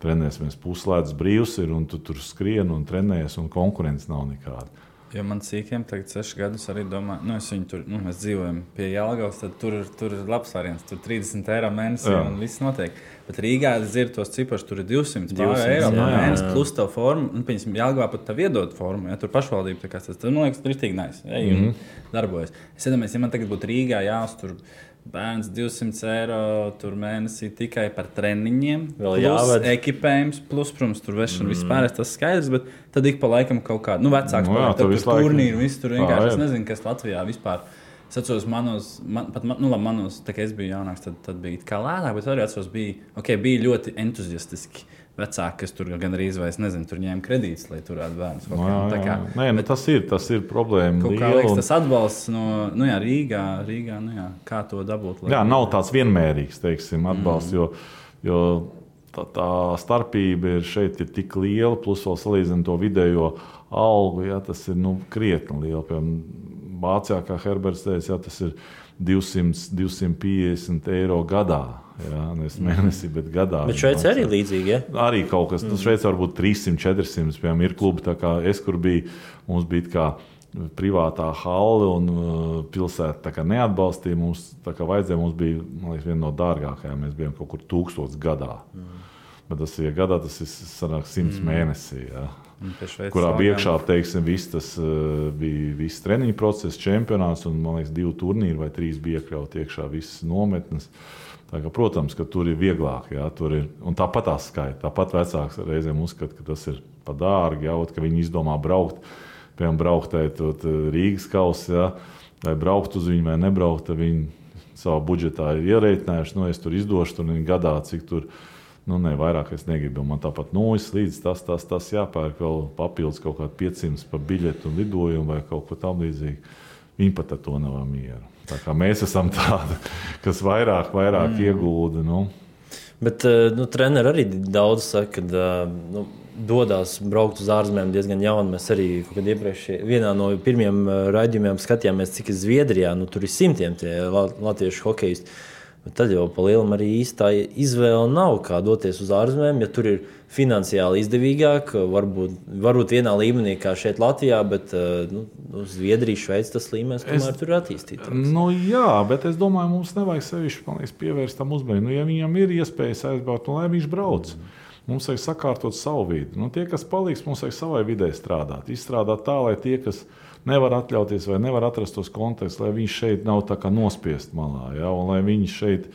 trenēsimies puslēdz brīvs ir, un tu tur skrien un trenējies, un konkurence nav nekāda. Jo man cīkiem tagad 6 gadus arī domā, mēs dzīvojam pie Jelgavas, tad tur ir labs variants, tur 30 eiro mēnesī un viss notiek. Bet Rīgā es dzirdu tos cipašus, tur ir 200 eiro mēnesī plus tev formu, un piemēram Jelgavā pat tev iedod formu, ja tur pašvaldība, tā kā tas, man liekas, rītīgi nice, un darbojas. Es iedomājos, ja man tagad būtu Rīgā jāuztur bērns 200 eiro tur mēnesī tikai par treniņiem, plus ekipējums, plus, protams, tur vešana vispār, tas skaidrs, bet tad ik pa laikam kaut kādu, vecāks paliek, tad tur turnīru, viss tur vienkārši, es nezinu, kas Latvijā vispār. Es atceros manos, tā kā es biju jaunāks, tad bija kā lētāk, bet arī atceros, bija ļoti entuziastiski vecāki, kas tur gan arī izvairs, nezinu, tur ņēma kredītus, lai turētu bērnus. Nē, tas ir problēma. Kaut kā liekas, tas atbalsts no Rīgā, kā to dabūt? Jā, nav tāds vienmērīgs, teiksim, atbalsts, jo tā starpība šeit ir tik liela, plus vēl salīdzinot to vidējo algu, tas ir krietni liela. Piemēram, Vācijā, kā Herberts teica, tas ir 200-250 eiro gadā. Nevis mēnesī, bet gadā. Bet Šveicē arī līdzīgi, ja? Arī kaut kas. Šveicē varbūt 300-400, piemēram, ir klubi, tā kā es, kur biju, mums bija kā privātā halle un pilsēta tā kā neatbalstīja. Mums tā kā vajadzēja, mums bija, man liekas, viena no dārgākajām. Mēs bijām kaut kur 1000 gadā. Bet tas ir gadā, tas ir sanāk 100 mēnesī, kurā iekšā, teiksim, viss treniņu process, čempionāts un, man liekas, 2 turnīri vai 3 bija iekļauti iekšā visas nometnes. Tā kā, protams, ka tur ir vieglāk, tur ir, un tāpat tās skaita. Tāpat vecāks reizēm uzskata, ka tas ir pa dārgi, ka viņi izdomā braukt, piemēram, brauktēt Rīgas kausi, vai braukt uz viņu vai nebraukt, tad viņi savā budžetā ir ierēķinājuši, es tur izdošu tur gadā, cik tur, vairāk es negribu. Man tāpat līdz tas jāpērk vēl papildus kaut kādu 500 par biļetu un lidojumu vai kaut ko tam līdzīgi. Viņi pat ar to nav mieru. Tā kā mēs esam tādi, kas vairāk iegulda. Bet treneri arī daudz saka, ka dodās braukt uz ārzemēm diezgan jauni. Mēs arī iepriekš vienā no pirmiem raidījumiem skatījāmies, cik ir Zviedrijā. Tur ir simtiem tie latviešu hokejisti. Bet tad jau pa lielam arī īstā izvēle nav, kā doties uz ārzemēm, ja tur ir finansiāli izdevīgāk, varbūt vienā līmenī kā šeit Latvijā, bet Zviedrija, Šveice tas līmenis tomēr tur ir attīstīts. Jā, bet es domāju, mums nevajag sevišķi pievērst tam uzmanību. Ja viņam ir iespējas aizbraukt, lai viņš brauc. Mums vajag sakārtot savu vidi. Tie, kas paliks, mums vajag savai vidē strādāt. Izstrādāt tā, lai tie, kas nevar atļauties vai nevar atrast tos kontekstus, lai viņš šeit nav tā kā nospiest malā. Un lai viņš šeit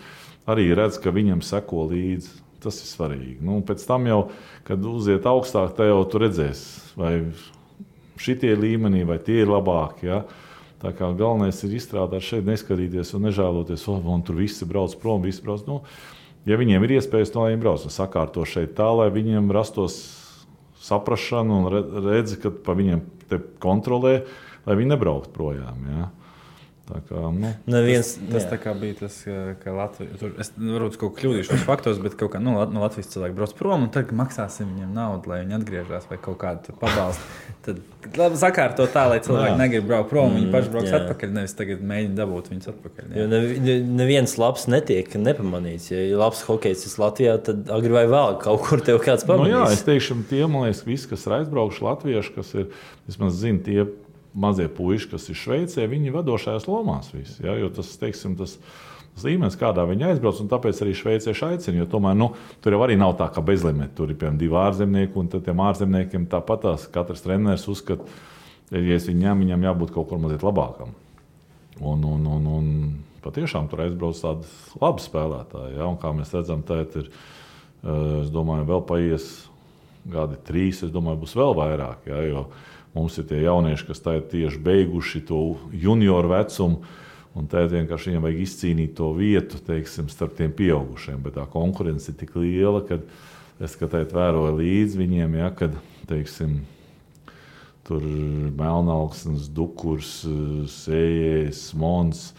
arī redz, ka viņam seko līdzi. Tas ir svarīgi. Pēc tam jau, kad uziet augstāk, tā jau tu redzēs, vai šitie līmenī, vai tie ir labāki. Tā kā galvenais ir izstrādāt šeit, neskatīties un nežēloties, un tur visi brauc prom, visi brauc. Ja viņiem ir iespējas, lai viņi brauc, sakārto šeit tā, lai viņiem rastos saprašanu un redzi, ka pa viņiem te kontrolē, lai viņi nebraukt projām. Tā kā, tas tā kā bija tas, ka Latvija, es varbūt kaut ko kļūdīšu tos faktos, bet kaut kā no Latvijas cilvēki brauc prom un tad maksāsim viņiem naudu, lai viņi atgriežās vai kaut kādu tur pabalstu. Tad sakārto tā, lai cilvēki negrib braukt prom, viņi paši brauks atpakaļ, nevis tagad mēģina dabūt viņus atpakaļ. Jo neviens labs netiek nepamanīts. Ja ir labs hokejs Latvijā, tad agri vai vēl kaut kur tev kāds pamanīs. Es teikšu, tie, man liekas, visi, kas ir aizbraukuši latvieši, kas ir, vismaz zinu, tie mazie puiši, kas ir Šveicē, viņi vadošajās lomās visi. Jo tas, teiksim, tas līmenis, kādā viņi aizbrauc, un tāpēc arī šveicieši aicina, jo tomēr, tur jau arī nav tā, ka bezlimeti. Tur ir, piemēram, 2 ārzemnieki, un tad tiem ārzemniekiem tāpatās katrs treneris uzskata, ja es viņam jābūt kaut kur mazliet labākam. Un patiešām tur aizbrauc tādi labi spēlētāji, un kā mēs redzam, tēt ir, es domāju, vēl paies gadi 3, es domāju, būs vēl vairāk, jo mums ir tie jaunieši, kas tā ir tieši beiguši to junioru vecumu, un tā vienkārši viņiem vajag izcīnīt to vietu, teiksim, starp tiem pieaugušiem. Bet tā konkurence ir tik liela, ka es vēroju līdz viņiem, kad, teiksim, tur Melnauksnes, Dukurs, Sējējs, Smons.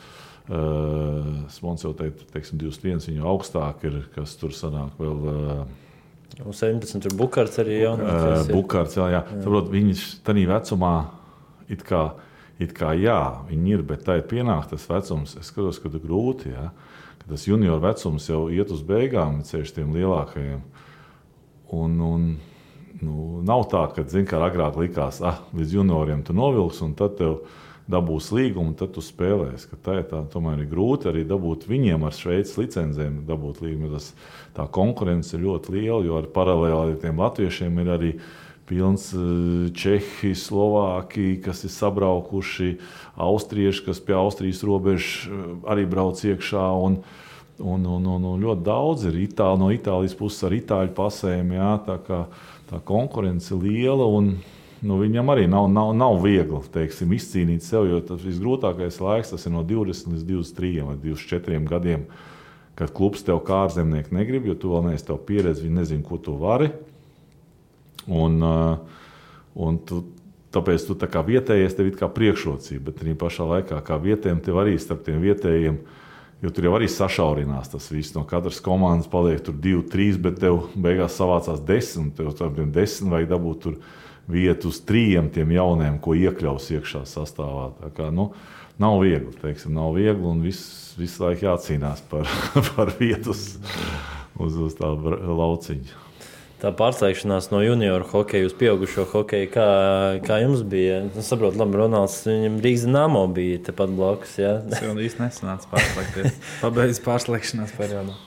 Smons jau teiksim, 21, viņu augstāk ir, kas tur sanāk vēl Un 17 tur Bukārts arī jaunākais. Bukārts, jā. Saprot, viņš tādā vecumā it kā jā, viņi ir, bet tā ir pienāk tas vecums. Es skatos, ka tas grūti, jā. Ka tas junior vecums jau iet uz beigām, ceļš tiem lielākajiem. Un nav tā, ka, kā agrāk likās, līdz junioriem tu novilks, un tad tev dabūs līgumu, un tad tu spēlēsi. Tā tomēr ir grūti arī dabūt viņiem ar Šveices licencēm dabūt līgumu. Tā konkurence ir ļoti liela, jo paralēli ar tiem latviešiem ir arī pilns Čehi, Slovāki, kas ir sabraukuši, austrieši, kas pie Austrijas robežas arī brauc iekšā, un ļoti daudz ir no Itālijas puses ar itāļu pasēm, jā, tā konkurence ir liela, un viņam arī nav viegli, teiksim, izcīnīt sev, jo tas visgrūtākais laiks, tas ir no 20 līdz 23 vai 24 gadiem, kad klubs tev kā ārzemnieki negrib, jo tu vēl neesi tev pieredzi, viņi nezin, ko tu vari. Un tāpēc tu tā kā vietējies, tev ir kā priekšrocība, bet arī pašā laikā kā vietējiem tev arī starp tiem vietējiem, jo tur jau arī sašaurinās tas viss. No katras komandas paliek tur 2-3, bet tev beigās savācās 10, tev tiem 10 vajag dabūt tur vietu uz 3 tiem jauniem, ko iekļaus iekšā sastāvā. Tā kā, nav viegli, teiksim, un visu laiku jācīnās par vietu uz tā lauciņa. Tā pārslēgšanās no junioru hokeja uz pieaugušo hokeju, kā jums bija? Es saprotu, labi, Ronalds, viņam Rīgas Dinamo bija tepat blakus, jā? Tas jau īsti nesanāca pārslēgties. Pabeidz pārslēgšanās periodu.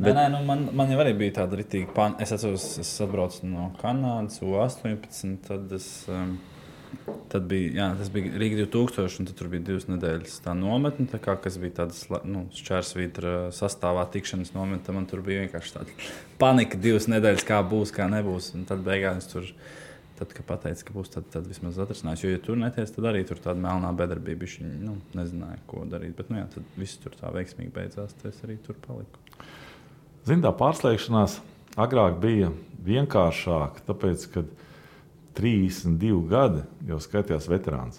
Man jau arī bija tāda ritīga Es atceros, es atbraucu no Kanādas, U18, tad bija, tas bija Rīga 2000, un tad tur bija 2 nedēļas tā nometne, kas bija tādas šķērsvītra sastāvā tikšanas nometne. Man tur bija vienkārši tāda panika 2 nedēļas, kā būs, kā nebūs. Un tad beigās tur, kad pateica, ka būs, tad vismaz atrasinājās. Jo, ja tur neties, tad arī tur tāda melnā bedarbība, viņi nezināja, ko darīt. Bet, tad viss tur tā veiksmīgi beidzās, tad es arī tur paliku. Tā pārslēgšanās agrāk bija vienkāršāk, tāpēc, kad 32 gadi jau skaitījās veterāns.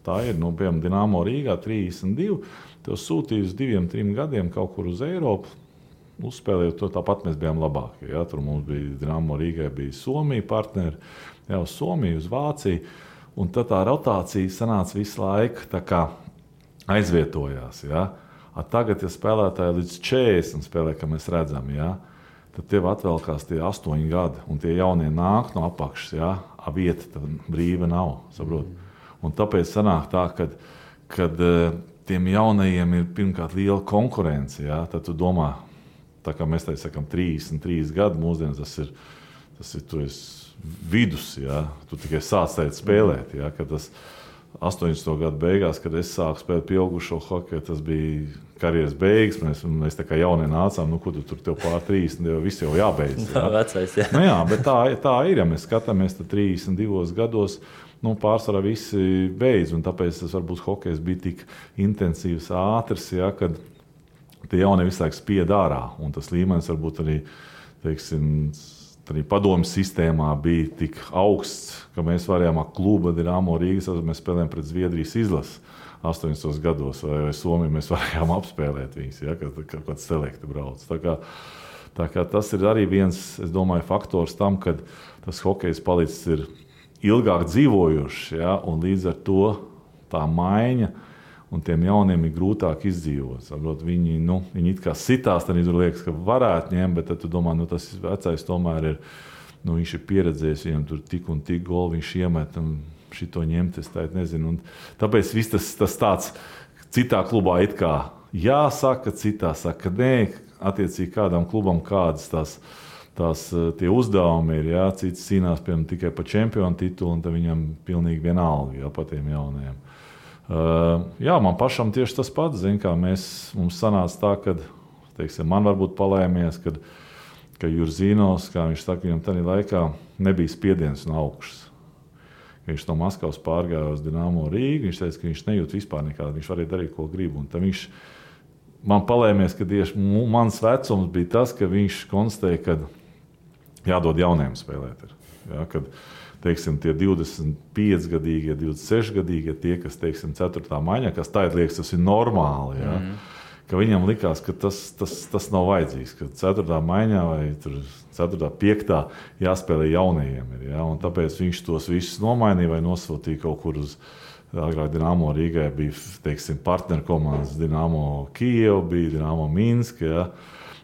Tā ir, piemēram, Dinamo Rīgā 32, tev sūtīja uz 2-3 gadiem kaut kur uz Eiropu, uzspēlējot to, tāpat mēs bijām labākie. Ja? Tur mums bija Dinamo Rīgai, bija Somija partneri, uz Somiju, uz Vāciju, un tad tā rotācija sanāca visu laiku tā kā aizvietojās. Ja? Tagad, ja spēlētāji līdz 40 spēlē, kā mēs redzam, ja? Tad tev atvēlkās tie 8 gadi, un tie jaunie nāk no apakšas, ja? Vieta tad brīva nav, saprot. Un tāpēc sanāk tā, kad tiem jaunajiem ir pirmkārt liela konkurence, ja? Tad tu domā, tā kā mēs sakam 33 gadi, mūsdienas tas ir tu esi vidus, ja? Tu tikai sāc spēlēt, ja? Kad tas 80. gadu beigās, kad es sāku spēlēt pieaugušo hokeju, tas bija karjeras beigas. Mēs tā kā jaunie nācām, ko tu tur tev pār 30, viss jau jābeidz. Jā, vecais, jā. Jā, bet tā ir, ja mēs skatāmies, tad 32 gados pārsvarā visi beidz, un tāpēc tas varbūt hokejs bija tik intensīvs, ātrs, ja, kad tie jaunie visu laiku spied ārā, un tas līmenis varbūt arī, teiksim, arī padomju sistēmā bija tik augsts, ka mēs varējām kluba Dinamo Rīgas, mēs spēlējām pret Zviedrijas izlasi 80. gados, vai Somiju mēs varējām apspēlēt viņus, ja, kad kāds selekti brauc. Tā kā tas ir arī viens, es domāju, faktors tam, kad tas hokejs palicis ir ilgāk dzīvojošs, ja, un līdz ar to tā maiņa un tiem jauniem ir grūtāk izdzīvot. Saprot, viņi it kā sitās, tad tur liekas, ka varētu ņemt, bet tad tu domā, tas vecais tomēr ir, viņš ir pieredzējis, viņam tur tik un tik goli, viņš iemet un šito ņemt, es tā nezinu. Un tāpēc viss tas tāds citā klubā it kā jāsaka, citā saka nē, attiecīgi kādam klubam kādas tie uzdevumi ir, jā, cits cīnās piemēram tikai par čempionu titulu, un tad viņam pilnīgi vienalga, jā, par tiem jaunajiem. Jā, man pašam tieši tas pats, mums sanāca tā, ka, teiksim, man varbūt palēmies, ka Jurzīnos, kā viņš saka, viņam tādā laikā nebija spiediens no augšas. Viņš no Maskavas pārgāja uz Dinamo Rīgu, viņš teica, ka viņš nejūt vispār nekādu, viņš varēja darīt, ko grib. Un tad viņš man palēmies, ka tieši mans vecums bija tas, ka viņš konstatēja, ka jādod jauniem spēlēt. Ja, kad, teiksim, tie 25-gadīgie, 26-gadīgie, tie, kas, teiksim, 4. maiņā, kas tā liekas, tas ir normāli, ja, ka viņam likās, ka tas nav vajadzīgs, ka 4. maiņā vai 4. 5. jāspēlē jaunajiem. Ja? Un tāpēc viņš tos visus nomainīja vai nosūtīja kaut kur uz agrāk Dinamo Rīgai bija, teiksim, partneru komandas Dinamo Kijev, bija Dinamo Minsk, ja?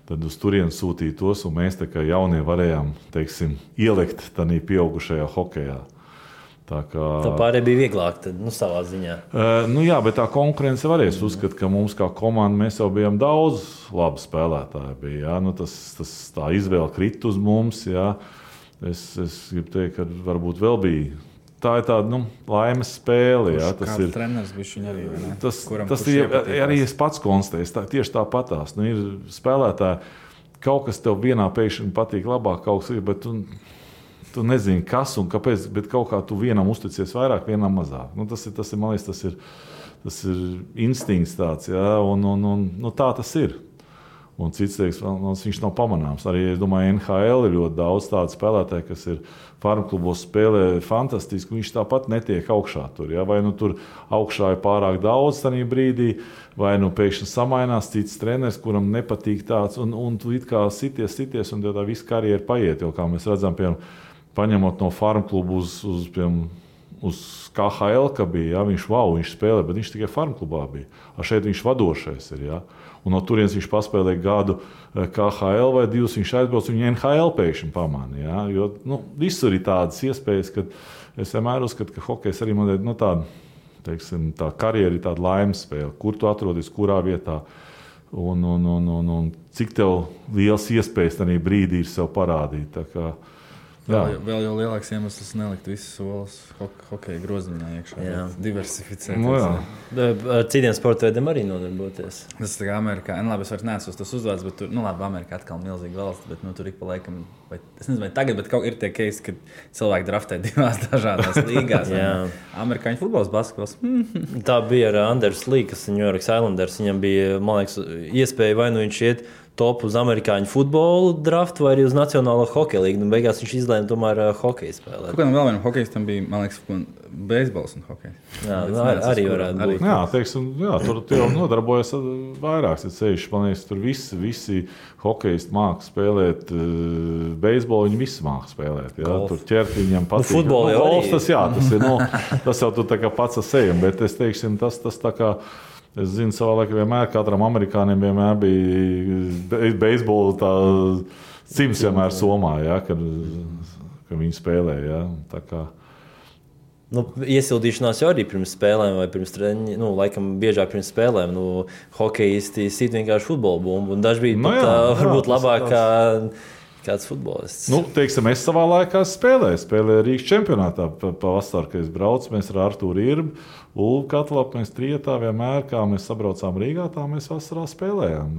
Tad uz turien sūtīja tos, un mēs tā kā jaunie varējām, teiksim, ielikt tādā pieaugušajā hokejā. Tā pārējie bija vieglāk, tad, savā ziņā. Jā, bet tā konkurence varēs uzskatīt, ka mums kā komanda mēs jau bijām daudz labu spēlētāju. Bija, ja? Tā izvēle krita uz mums. Ja? Es gribu teikt, ka varbūt vēl bija. Tā ir tāda laimes spēle. Ja? Tas ir treneris, viņa arī. Tas ir arī es pats konstatēju. Tieši tāpatās. Ir spēlētāji, kaut kas tev vienā pēkšņi patīk labāk, kaut kas ir, bet tu nezini, kas un kāpēc, bet kaut kā tu vienam uzticies vairāk, vienam mazāk. Tas ir, man liekas, tas ir instinkts tāds, ja? Un tā tas ir. Un cits teiks, viņš nav pamanāms. Arī, es domāju, NHL ir ļoti daudz tādu spēlētāju, kas ir farmklubos spēlē fantastiski, viņš tāpat netiek augšā tur. Ja? Vai tur augšā ir pārāk daudz tajā brīdī, vai pēkšņi samainās cits treneris, kuram nepatīk tāds, un tu it kā sities, un tā visa karjera paiet. Jo, kā mēs redzam, paņemot no farmklubu uz KHL, ka bija, ja? Viņš spēlē, bet viņš tikai farmklubā bija. Šeit viņš vadošais ir, ja? Un no turienes viņš paspēlēja gadu KHL vai 2, viņš aizbrauc, viņa NHL pēkšņi pamāna. Ja? Jo visur ir tādas iespējas, ka es vienmēr uzskatu, ka hokejs arī man ir tā karjera ir tāda laimes spēle, kur tu atrodies, kurā vietā. Un cik tev liels iespējas tajā brīdī ir sev parādīt. Tā kā, vēl jau lielāks iemesls nelikt visus solis hokeja groziņā iekšā. Diversificēt. Ar citiem sporta veidiem arī nodarboties. Tas ir Amerikā. Labi, es vairs neesmu tas uzvārds, bet tur, Amerikā atkal milzīga valsts, bet tur ik pa laikam, es nezinu, vai tagad, bet kaut ir tie keisi, kad cilvēki draftē 2 dažādās līgās. Amerikāņu futbols, basketbols. Tā bija ar Anders Lee, kas ir New York Islanders. Viņam bija, man liekas, iespēja vai viņš iet top uz amerikāņu futbolu draftu vai arī uz Nacionālo hokeja līgu. Beigās viņš izlēma tomēr hokeju spēlēt. Kādam vēl vienam hokejistam bija, man liekas, beisbols un hokejs. Arī varētu būt. Tur jau nodarbojas vairāks. Man liekas, tur visi hokejisti māca spēlēt beisbolu, viņi visi māca spēlēt. Ja? Tur ķert viņam patīk. Futbolu jau arī. Tas ir, tas jau tu tā kā pats ar sevi, bet es teiksim, tas tā kā es zinu, savā laikā vienmēr katram amerikānim vienmēr bija beisbola tā cimds vienmēr somā, ja, kad viņi spēlē. Ja, tā kā. Iesildīšanās jau arī pirms spēlēm vai pirms treniņiem, laikam biežāk pirms spēlēm. Hokejisti sit vienkārši futbola bumbu, un daži bija varbūt labāk kā kāds futbolists. Teiksim, es savā laikā spēlēju Rīgas čempionātā pavasarī, kad es braucu, mēs ar Artūru Irbu, Ulvu Katlapu, mēs trietā vienmēr, kā mēs sabraucām Rīgā, tā mēs vasarā spēlējām.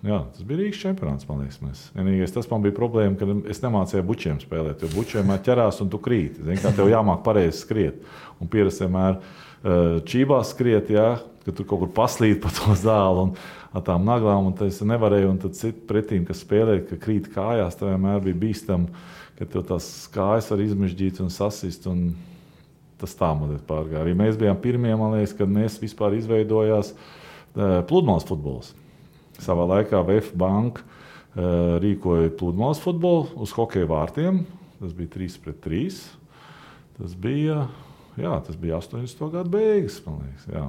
Tas bija Rīgas čempionāts, man liekas. Vienīgais tas man bija problēma, ka es nemācīju bučiem spēlēt, jo bučiem ķerās un tu krīti. Zini, kā tev jāmāk pareizi skriet. Un pierast vienmēr čībās skriet, ja, ka tur kaut kur paslīd pa to zāli un ar tām naglām, un tas nevarēja, un tad citi pretīm, kas spēlēja, ka krīt kājās, tā vienmēr bija bīstam, ka tev tās kājas var izmežģīt un sasist, un tas tā mazliet pārgāja. Arī mēs bijām pirmie, man liekas, kad mēs vispār izveidojās pludmales futbols. Savā laikā VF Banka rīkoja pludmales futbolu uz hokeja vārtiem. Tas bija 3-3. Tas bija 80. gadu beigas, man liekas, jā.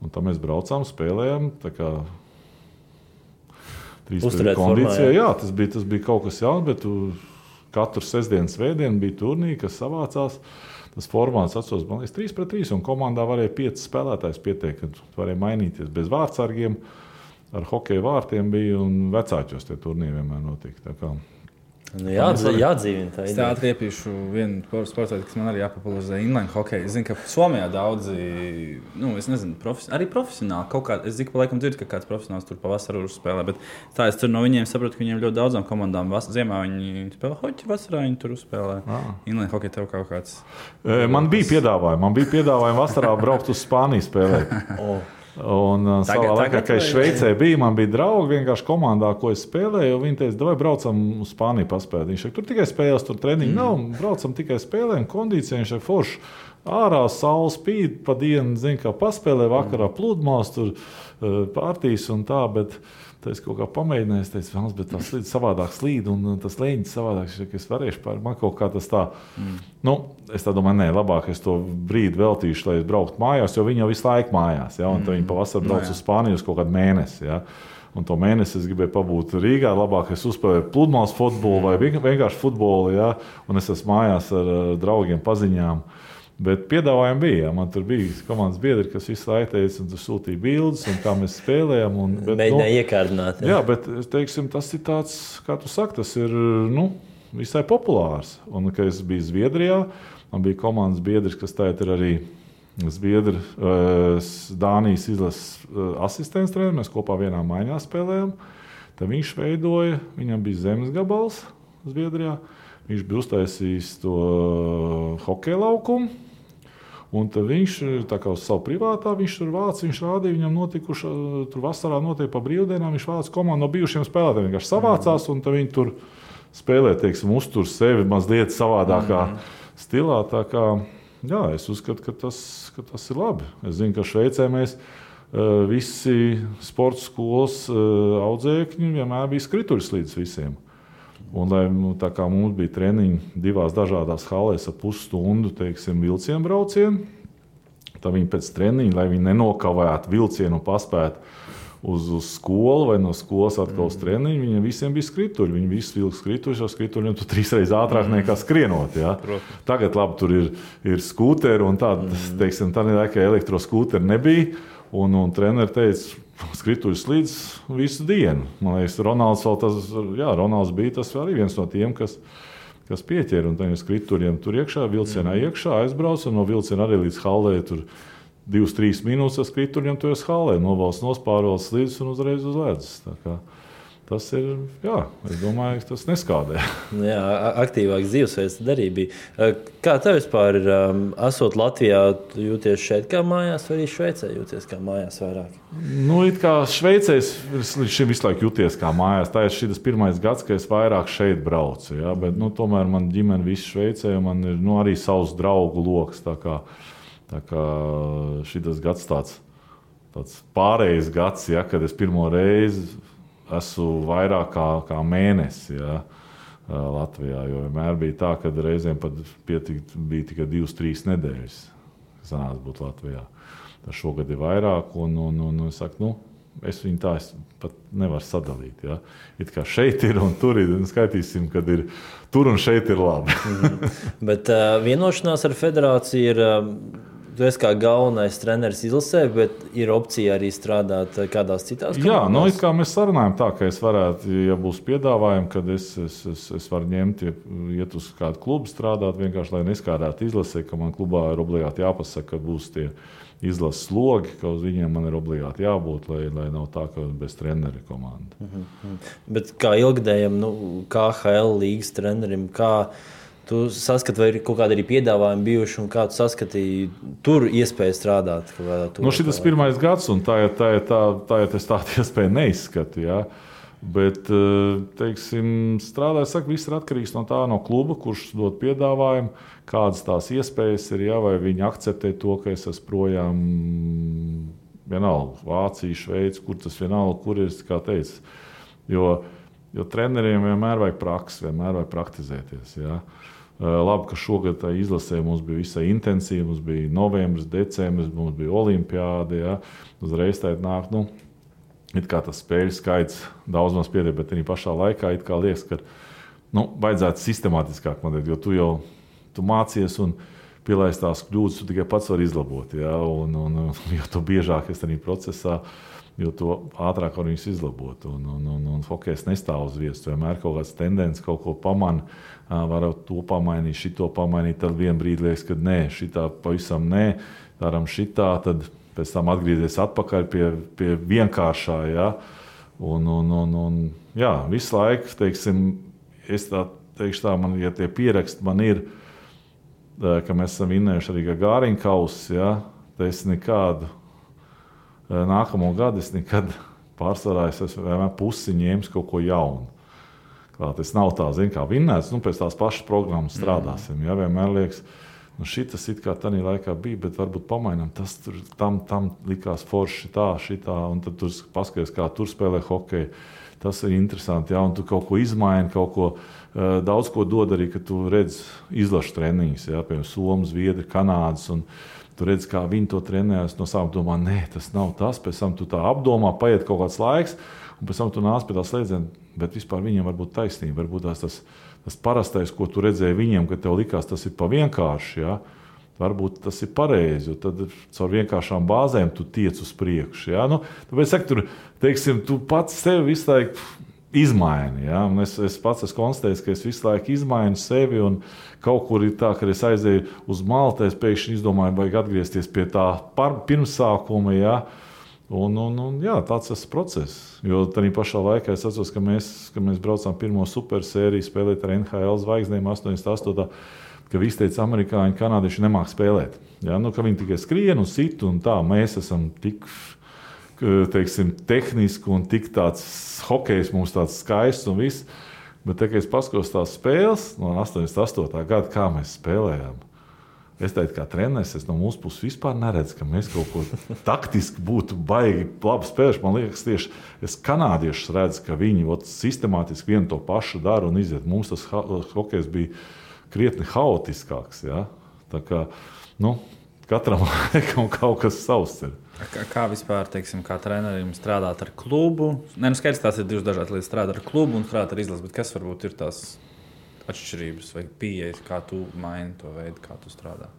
Un tā mēs braucām, spēlējām, tā kā 3-3 kondīcijā. Jā, tas bija kaut kas jauns, bet katru sestdienu, svētdienu bija turnīri, kas savācās. Tas formāts atceros, man liekas, 3-3, un komandā varēja 5 spēlētājus pieteikt, kad varēja mainīties bez vārtsargiem. Ar hokeja vārtiem bija, un vecāķos tie turnīri vienmēr notika. Tā kā jādzīvina tā ideja. Es tā atriepīšu vienu sporta veidu, kas man arī jāpopularizē inline hokeju. Es zinu, ka Somijā daudzi, es nezinu, arī profesionāli kaut kā, es zinu, ka laikam dzirdu, ka kāds profesionāls tur pavasarā uzspēlē, bet tā es tur no viņiem saprotu, ka viņiem ļoti daudzām komandām ziemā viņi spēlē hoķi, vasarā viņi tur uzspēlē. Inline hokeju tev kaut kāds. Man bija piedāvājumi vasarā braukt uz Spāniju spēlēt. Un savā laikā, kad es Šveicē biju, man bija draugi vienkārši komandā, ko es spēlēju. Viņi teica, davai braucam uz Spāniju paspēlēt. Viņš teica, tur tikai spēles, tur treniņi nav, braucam tikai spēlēm, kondīcijā. Viņš teica, forši, ārā saule spīd, pa dienu, kā paspēlē, vakarā pludmales, tur pārtīs un tā, bet es kaut kā pamēģināju, es teicu, bet tas slīd savādāk slīd, un tas leņķis savādāk, ka es varēšu man kaut kā tas tā, es tā domāju, nē, labāk es to brīdi veltīšu, lai es brauktu mājās, jo viņi jau visu laiku mājās, ja, un tad viņi pavasar brauc uz Spāniju uz kaut kādu mēnesi, ja. Un to mēnesi es gribēju pabūt Rīgā, labāk es uzspēlēju pludmales futbolu vai vienkārši futbolu, ja, un es esmu mājās ar draugiem, paziņām. Bet piedāvājumi bija, man tur bija komandas biedri, kas visu laiku teica, un tur sūtīja bildes, un kā mēs spēlējam. Mēģināja iekārdināt. Jā, bet, teiksim, tas ir tāds, kā tu saki, tas ir, visai populārs. Un, kad es biju Zviedrijā, man bija komandas biedrs, kas tagad ir arī Zviedri, Dānijas izlases asistents treneris, mēs kopā vienā maiņā spēlējām. Tad viņš veidoja, viņam bija zemes gabals Zviedrijā, viņš bija uztaisījis to hokeja laukumu. Un tad viņš, tā kā uz savu privātā, viņš tur vāc, viņš rādīja, viņam notikuši, tur vasarā notiek pa brīvdienām, viņš vāc komandu no bijušiem spēlētājiem, vienkārši savācās, un tad viņi tur spēlē, teiksim, uztur sevi mazliet savādākā stilā, tā kā, jā, es uzskatu, ka tas ir labi. Es zinu, ka Šveicē mēs visi sporta skolas audzēkņi vienmēr bija skrituļslīdes visiem. Un, lai tā kā mums bija treniņi divās dažādās halēs ar pusstundu, teiksim, vilcienu braucienu, tad viņi pēc treniņa, lai viņi nenokavētu vilcienu un paspētu uz skolu vai no skolas atkal uz treniņu, viņiem visiem bija skrituļi. Viņi visi vilka skrituļus, jo skrituļiem tu 3 reizes ātrāk nekā skrienot. Ja? Tagad labi, tur ir skūteri un tāda, teiksim, tā laikā elektroskūteri nebija. Un treneri teica, skrituļus līdz visu dienu. Man liekas, Ronalds bija tas arī viens no tiem, kas pieķēra. Un tajiem skrituļiem tur iekšā, vilcienā iekšā aizbrauca, un no vilciena arī līdz hallē tur 2-3 minūtes ar skrituļiem tu esi hallē. Novalsts, nospārvalsts līdz un uzreiz uz ledus. Tā kā tas ir, jā, es domāju, ka tas neskādē. Jā, aktīvāks dzīvesveids arī bija. Kā tev vispār ir, esot Latvijā, jūties šeit kā mājās, vai arī Šveicē jūties kā mājās vairāk? It kā Šveicē es līdz šim visu laiku jūties kā mājās. Tā ir šis pirmais gads, ka es vairāk šeit braucu. Ja? Bet tomēr man ģimene visu Šveicē, un man ir arī savs draugu loks. Tā kā šis gads tāds pārējais gads, ja, kad es pirmo reizi esmu vairāk kā mēnesi, ja, Latvijā. Jo vienmēr bija tā, ka reizēm pat bija tikai 2-3 nedēļas, kas sanāca būt Latvijā. Tas šogad ir vairāk, un es saku, es viņu tā pat nevaru sadalīt. Ja. It kā šeit ir un tur ir, un skaitīsim, kad ir tur un šeit ir labi. Bet vienošanās ar federāciju ir... Tu esi kā galvenais treneris izlasē, bet ir opcija arī strādāt kādās citās komandās? Jā, kā mēs sarunājam tā, ka es varētu, ja būs piedāvājumi, kad es varu ņemt, iet uz kādu klubu strādāt, vienkārši, lai neskādētu izlasē, ka man klubā ir obligāti jāpasaka, ka būs tie izlases slogi, ka uz viņiem man ir obligāti jābūt, lai nav tā, ka bez treneri komanda. Bet kā ilgadējam, KHL līgas trenerim, kā tu saskati, vai ir kaut kādi arī piedāvājumi bijuši, un kā tu saskatīji tur iespēju strādāt? Šis pirmais gads, un tā es tādu iespēju neizskatu. Ja? Bet, teiksim, strādāju, saka, viss ir atkarīgs no kluba, kurš dod piedāvājumu, kādas tās iespējas ir, ja? Vai viņi akceptē to, ka es esmu projām vienalga, Vācija, Šveice, kur tas vienalga, kur ir, kā teicu. Jo treneriem vienmēr vajag praksi, vienmēr vajag praktizēties. Ja? Labi, ka šogad tā izlasē mums bija visai intensīva, mums bija novembris, decembris, mums bija olimpiāde, ja? Uzreiz tā nāk, it kā tas spēļu skaits daudz maz pietiek, bet arī pašā laikā it kā liekas, ka vajadzētu sistemātiskāk modēt, jo tu mācies un pielaist tās kļūdas, tu tikai pats vari izlabot, ja? Un jo to biežāk es arī procesā, jo to ātrāk var viņus izlabot. Un hokejs nestāv uz vietas. Vienmēr kaut kāds tendence, kaut ko pamana, var to pamainīt, šito pamainīt, tad vien brīdi liekas, ka nē, šitā pavisam nē, daram šitā, tad pēc tam atgriezies atpakaļ pie vienkāršā. Ja? Un jā, visu laiku, teiksim, es tā teikšu tā, man, ja tie pieraksti man ir, ka mēs esam vinnējuši arī Gāriņa kausu, ja? Tad es nekādu nākamo gadu es nekad pārsvarā esmu vienmēr pusi ņēmis kaut ko jaunu. Tas nav tā, kā vinnēts, pēc tās pašas programmas strādāsim. Ja? Vienmēr liekas, Nu, šitas it kā tādā laikā bija, bet varbūt pamainām. Tas tur, tam likās forši šitā, un tad tur paskaties, kā tur spēlē hokeju. Tas ir interesanti, jā, un tu kaut ko izmaini, kaut ko daudz ko dod arī, ka tu redz izlašu treniņus, jā, piemēram, Somu, Zviedri, Kanādas, un tu redz, kā viņi to trenējas, no sākuma domā, nē, tas nav tas, pēc tam tu tā apdomā, paiet kaut kāds laiks, un pēc tam tu nāc pie tā slēdziena, bet vispār viņiem var būt taisnība, varbūt tas parastais, ko tu redzēji viņiem, ka tev likās, tas ir pa vienkārši, jā, varbūt tas ir pareizi, jo tad caur vienkāršām bāzēm tu tiec uz priekšu, jā, nu, tāpēc, tur, teiksim, tu pats sevi visu laiku izmaini, ja? Es pats esmu konstatējis, ka es visu laiku izmainu sevi, un kaut kur ir tā, ka es aizēju uz Maltu, es pēkšņi izdomāju, vajag atgriezties pie tā pirmsākuma, ja? Un jā, tāds tas process. Jo tādā pašā laikā es atceros, ka mēs braucām pirmo supersēriju spēlēt ar NHL zvaigznēm 88. Ka visi teica, amerikāņi, kanādieši nemāk spēlēt. Ja? Nu, ka viņi tikai skrien un sit, un tā, mēs esam tik, teiksim, tehniski un tik tāds hokejs mums tāds skaists un viss. Bet, kad es paskatos tās spēles no 88. gada, kā mēs spēlējām, es teicu, kā treneris, es no mūsu puses vispār neredzu, ka mēs kaut ko taktiski būtu baigi labi spēlējuši. Man liekas, tieši es kanādiešus redzu, ka viņi sistemātiski vienu to pašu dara un iziet. Mums tas hokejs bija krietni haotiskāks. Ja? Tā kā, katram laikam kaut kas savs ir. Kā vispār, teiksim, kā trenerim strādāt ar klubu? Skaidrs, tās ir divas dažādas lietas. Strādāt ar klubu un strādāt ar izlasi, bet kas varbūt ir tās atšķirības vai pieejas, kā tu maini to veidu, kā tu strādā?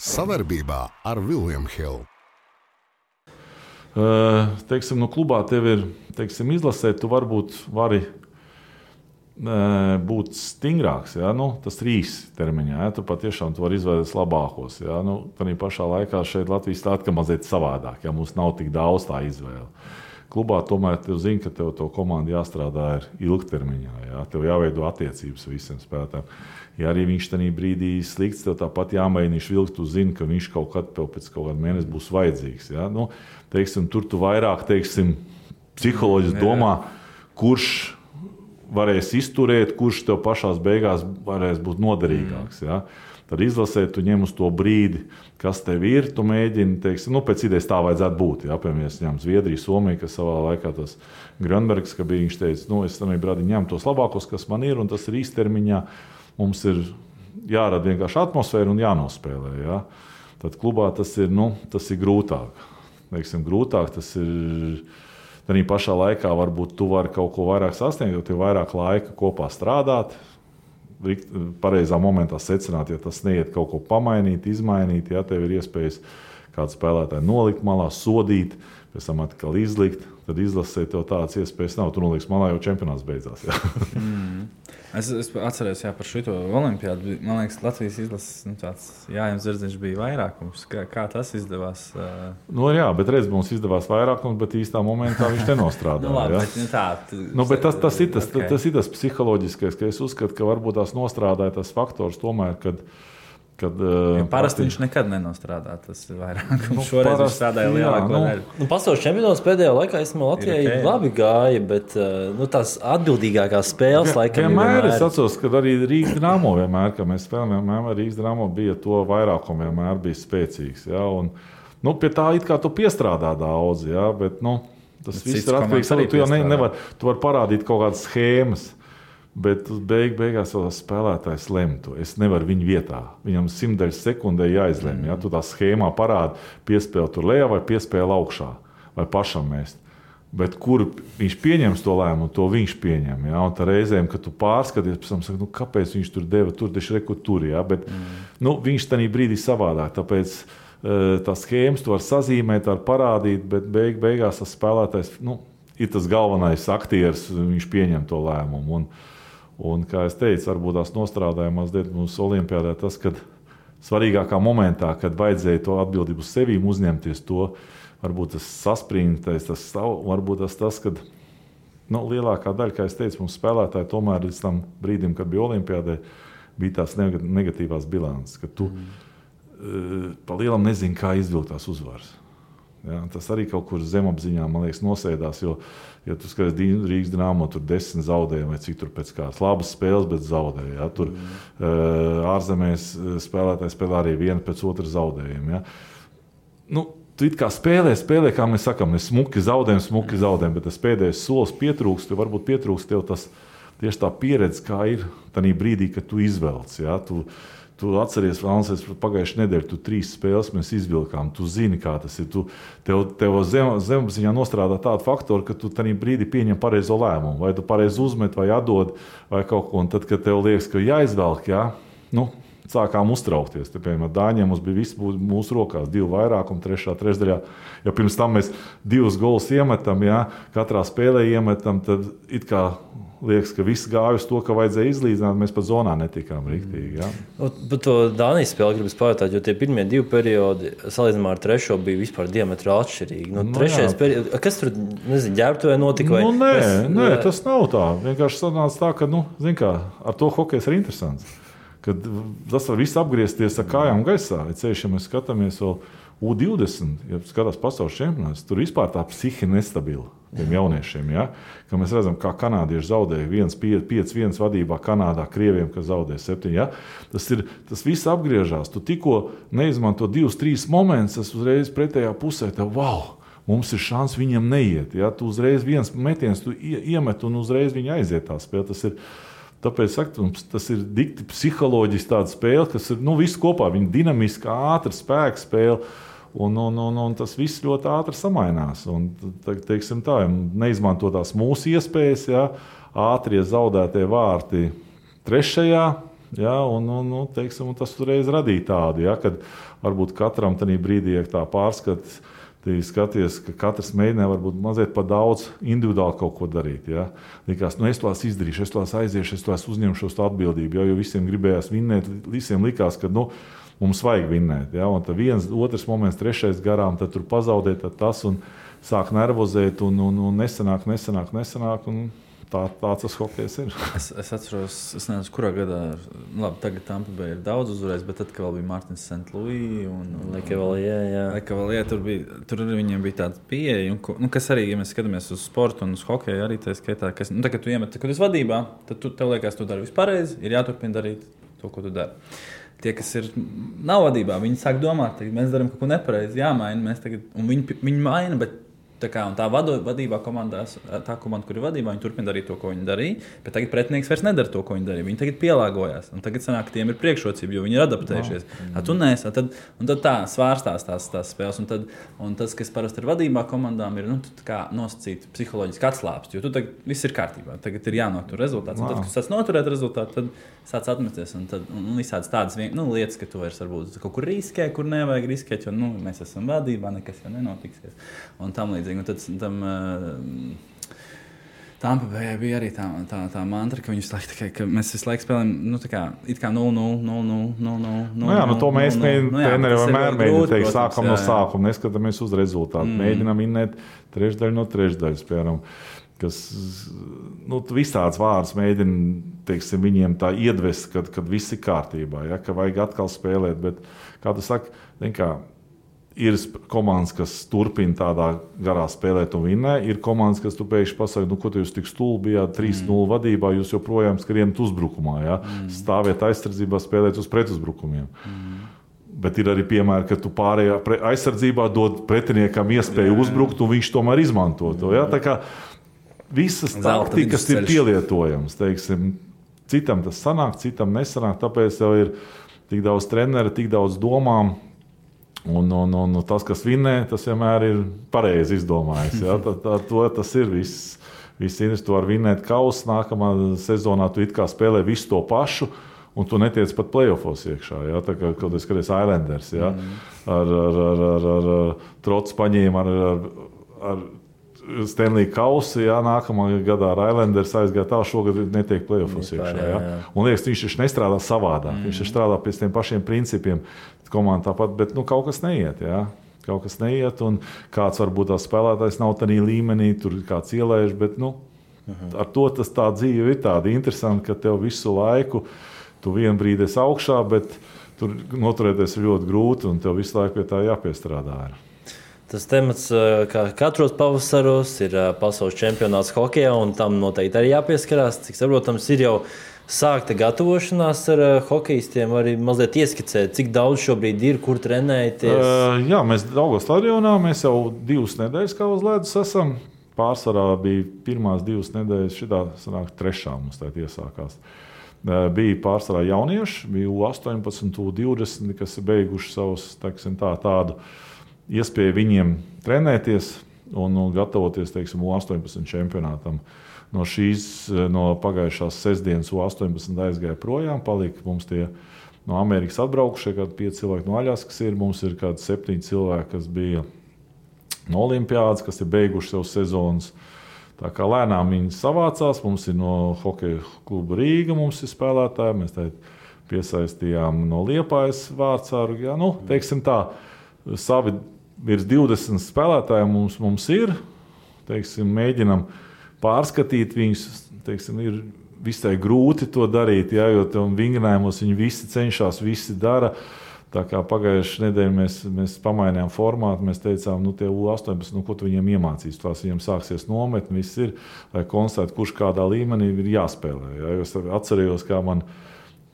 Savarbībā ar William Hill. Teiksim, no klubā tev ir, teiksim, izlasē, tu varbūt vari būt stingrāks, ja? Tas īsi termiņā, ja? Tu patiešām tu vari izvēlēties labākos. Ja? Tādā pašā laikā šeit Latvijas tā atkal mazliet savādāk, ja mums nav tik daudz tā izvēle. Klubā tomēr tev zina, ka tev to komandu jāstrādā ir ilgtermiņā, ja? Tev jāveido attiecības visiem spēlētājiem. Ja arī viņš tajā brīdī slikts, tev tāpat jāmēģina vilkt, tu zini, ka viņš kaut kad pēc kaut kāda mēneša būs vajadzīgs. Ja? Teiksim, tur tu vairāk, teiksim, psiholoģiski domā, kurš varēs izturēt, kurš tev pašās beigās varēs būt noderīgāks. Ja? Tad izlasē, tu ņem uz to brīdi, kas tev ir, tu mēģini, teiksim, pēc idejas tā vajadzētu būt. Ja? Piemēram, es ņemu Zviedriju, Somiju, kas savā laikā tas Grönbergs, ka bija, viņš teica, es tam brādi ņemu tos labākos, kas man ir, un tas ir īstermiņā. Mums ir jārada vienkārši atmosfēra un jānospēlē. Ja? Tad klubā tas ir grūtāk. Teiksim, grūtāk tas ir. Tad pašā laikā varbūt tu vari kaut ko vairāk sasniegt, jo tev ir vairāk laika kopā strādāt, pareizā momentā secināt, ja tas neiet kaut ko pamainīt, izmainīt, ja tev ir iespējas kādu spēlētāju nolikt malā, sodīt, pēc tam atkal izlikt, tad izlasē tev tādas iespējas nav. Tu noliks malā, jau čempionāts beidzās. Ja. Es atceros par šito olimpiādu. Man liekas, Latvijas izlases tāds Jānis Zirdziņš bija vairākums. Kā tas izdevās? Jā, bet redz, mums izdevās vairākums, bet īstā momentā viņš nenostrādāja. Bet tas ir tas psiholoģiskais, ka es uzskatu, ka varbūt tās nostrādāja tas faktors tomēr, kad parasti viņš nekad nenostrādā. Tas ir vairāk. Šoreiz viņš strādāja lielāko daļu. Pasaules čempionāts pēdējā laikā Latvijai labi gāja, bet tās atbildīgākās spēles laikam vienmēr. Es atceros, ka arī Rīgas Dinamo vienmēr, kad mēs spēlējām, Rīgas Dinamo bija to vairākumu vienmēr bija spēcīgs. Ja? Un, pie tā it kā tu piestrādā daudz, ja? Bet tas viss ir atkarīgs. Tu jau tu vari parādīt kaut kādas schēmas. Bet beigās vēl tas spēlētājs lemtu. Es nevaru viņu vietā. Viņam 100 sekundē jāizlemj. Ja? Tu tā schēmā parādi, piespēli tur lejā vai piespēli augšā. Vai pašam mest. Bet kur viņš pieņems to lēmumu, to viņš pieņem. Ja? Un tā reizēm, kad tu pārskaties, pēc tam saka, kāpēc viņš tur deva tur, tieši reku tur. Ja? Bet viņš tajā brīdī savādāk. Tāpēc tās schēmas tu var sazīmēt, var parādīt, bet beigās tas spēlētājs ir tas galvenais aktieris, viņš pieņem to lēmumu. Un, kā es teicu, varbūt tās nostrādāja mazliet mums olimpiādē tas, kad svarīgākā momentā, kad vajadzēja to atbildību uz sevīm uzņemties to, varbūt tas saspringtais, varbūt tas, kad lielākā daļa, kā es teicu, mums spēlētāji tomēr līdz tam brīdim, kad bija olimpiādē, bija tās negatīvās bilances, ka tu pa lielam nezini, kā izvilkt tās uzvaras. Ja? Tas arī kaut kur zemapziņā, man liekas, nosēdās, jo, ja tu skaties Rīgas Dynamo, tur 10 zaudējumi vai cik tur pēc kādas labas spēles, bet zaudēja. Ja? Tur ārzemēs spēlētāji spēlē arī vienu pēc otru zaudējumu. Ja? Nu, tu it kā spēlē, kā mēs sakām, mēs smuki zaudējam, bet tas pēdējais solis pietrūkst, jo varbūt pietrūkst tev tas tieši tā pieredze, kā ir tajā brīdī, kad tu izvelc. Ja? Tu atceries, pagājušajā nedēļā, tu 3 spēles mēs izvilkām, tu zini, kā tas ir. Tev zemapziņā nostrādā tādu faktoru, ka tu tajā brīdī pieņem pareizo lēmumu, vai tu pareizi uzmet, vai atdod, vai kaut ko. Un tad, kad tev liekas, ka jāizvelk, ja? Nu, sākām uztraukties. Te, piemēram, Dāņiem mums bija viss mūsu rokās, 2 vairākumi, 3. trešdaļā. Ja pirms tam mēs 2 golus iemetam, ja? Katrā spēlē iemetam, tad it kā liekas, ka viss gāja uz to, ka vajadzēja izlīdzināt, mēs pat zonā netikām riktīgi. Ja? Par to Dānijas spēli gribas pajautāt, jo tie pirmie 2 periodi, salīdzinājumā ar 3. bija vispār diametrāli atšķirīgi. Nu, 3. periods, kas tur, nezinu, ģērbtuvē notika? Vai, nē, tas nav tā. Vienkārši sanāca tā, ka, zin kā, ar to hokejs ir interesants. Kad tas var viss apgriezties ar kājām gaisā. Ceļš, ja mēs skatāmies vēl U20, ja skatās pasaules čempionāts, tur vispār tā psihi nestabila tiem jauniešiem. Ja? Ka mēs redzam, kā kanādieši zaudēja 5-1 vadībā Kanādā, krieviem, kas zaudēja 7. Ja? Tas viss apgriežās. Tu tikko neizmanto 2-3 momentus, tas uzreiz pretējā pusē tev, wow! Mums ir šans viņam neiet. Ja? Tu uzreiz viens metiens tu iemet un uzreiz viņa aiziet tā spēle. Tāpēc tas ir dikti psiholoģiski tāda spēle, kas ir viss kopā. Viņa dinamiska, ātra spēka spēle. Un tas viss ļoti ātri samainās. Un, teiksim tā, neizmanto tās mūsu iespējas, ja, ātrie zaudētie vārti 3. Ja, un tas uzreiz radīja tādu, ja, kad varbūt katram tajā brīdī, ja tā pārskats, skaties, ka katrs mēģināja varbūt mazliet pa daudz individuāli kaut ko darīt. Ja? Likās, es to izdarīšu, es to aiziešu, es to uzņemšos atbildību, jo visiem gribējās vinnēt, visiem likās, ka mums vajag vinnēt. Ja? Un tad 1, 2 moments, 3. garām, tad tur pazaudēt tad tas un sāk nervozēt un nesanāk. Un tāds tas hokejs ir. Es atceros, es nezinu, kurā gadā, labi, tagad Tampa Bay ir daudz uzvarējis, bet tad, kad vēl bija Martins St. Louis un Lekavalie, tur arī viņiem bija tāda pieeja, kas arī, ja mēs skatāmies uz sportu un uz hokeju, arī tā skaitā, kad tu iemet, kad esi vadībā, tad tev liekas, tu dari visu pareizi, ir jāturpina darīt to, ko tu dari. Tie, kas nav vadībā, viņi sāk domāt, mēs darām kaut ko nepareizi, jāmaina, un viņi maina, bet tā vadībā komandās, tā komanda, kur ir vadībā, viņi turpina darīt to, ko viņi darīja, bet tagad pretinieks vairs nedara to, ko viņi darīja. Viņi tagad pielāgojās, un tagad sanāk, tiem ir priekšrocība, jo viņi ir adaptējušies. Tu nesi, un tad tā svārstās tās spēles, un tas, kas parasti ir vadībā komandām, ir nosacīt psiholoģiski atslāpst, jo tu tagad viss ir kārtībā, tagad ir jānotur rezultāts, un tad, kad tu sāc noturēt rezultātu, tad sāc atmesties, un visādas tādas lietas, ka tu vairs varbūt kaut kur riskē, kur nevajag riskēt, jo mēs esam vadībā, nekas jau nenotiksies, un tam līdzīgi. Un tad Tampa Bayā bija arī tā mantra, ka viņi mēs visu laiku spēlējam, it kā 0-0. Jā, to mēs treneri vienmēr mēģinām teikt, sākam no sākuma, neskatāmies uz rezultātu. Mēģinām vinnēt 3 no 3, piemēram, kas visāds vārds mēģina, teiksim, viņiem tā iedvest, kad viss ir kārtībā, ja, ka vajag atkal spēlēt, bet, kā tu saki, ir komandas, kas turpina tādā garā spēlēt un vinnē. Ir komandas, kas tu pēkšņi pasaka, ko tu jūs tik stulbi bijāt 3-0 vadībā, jūs joprojām skrienat uzbrukumā. Ja? Stāviet aizsardzībā, spēlēt uz pretuzbrukumiem. Bet ir arī piemēri, ka tu pārējā aizsardzībā dod pretiniekam iespēju uzbrukt, un viņš tomēr izmanto to. Ja? Tā kā visas taktikas ir pielietojams. Teiksim, citam tas sanāk, citam nesanāk, tāpēc jau ir tik daudz treneri, tik daudz domām. Un tas, kas vinnē, tas vienmēr ir pareizi izdomājis. Ja? Tas ir viss. Tu vari vinnēt kausu, nākamā sezonā tu it kā spēlē visu to pašu, un tu netiec pat playoffos iekšā. Ja? Tā kā kaut kāds Islanders, ja? ar trots paņēma, ar Stanley kausu, ja? Nākamā gadā ar Islanders aizgāja tā, šogad netiek playoffos iekšā. Ja? Un liekas, viņš nestrādā savādāk, viņš strādā pēc tiem pašiem principiem. Komanda tāpat, bet kaut kas neiet. Ja? Kaut kas neiet, un kāds varbūt tās spēlētājs nav tādā līmenī, tur kāds ielēž, bet ar to tā dzīve ir tāda interesanta, ka tev visu laiku tu vienu brīdi esi augšā, bet tur noturēties ir ļoti grūti, un tev visu laiku pie tā jāpiestrādā. Tas temats, kā katros pavasaros, ir pasaules čempionāts hokejā, un tam noteikti arī jāpieskarās. Cik saprotams, ir jau sākta gatavošanās ar hokejistiem, arī mazliet ieskicēt, cik daudz šobrīd ir, kur trenēties. Jā, mēs Daugavas stadionā, mēs jau 2 nedēļas kā uz ledus esam. Pārsvarā bija pirmās 2 nedēļas, šitā sanāk 3. mums tā iesākās. Bija pārsvarā jaunieši, bija U18, U20, kas ir beiguši savus, teiksim, tādu iespēju viņiem trenēties un gatavoties, teiksim, U18 čempionātam. No pagājušās sestdienas U18 aizgāja projām, palika mums tie no Amerikas atbraukušie, kādi 5 cilvēki no Aļaskas ir, mums ir kādi 7 cilvēki, kas bija no Olimpiādas, kas ir beiguši savu sezonas. Tā kā lēnām viņi savācās, mums ir no hokeja kluba Rīga, mums ir spēlētāji, mēs piesaistījām no Liepājas Vārtsāru, teiksim tā, savi virs 20 spēlētāji mums ir, teiksim, mēģinam pārskatīt viņus, teiksim, ir visai grūti to darīt, jo vingrinājumos viņi visi cenšas, visi dara. Tā kā pagājušajā nedēļā mēs pamainījām formātu, mēs teicām, tie U18, ko tu viņiem iemācīs. Tās viņiem sāksies nometni, viss ir, lai konstatētu, kurš kādā līmenī ir jāspēlē. Es atcerējos, kā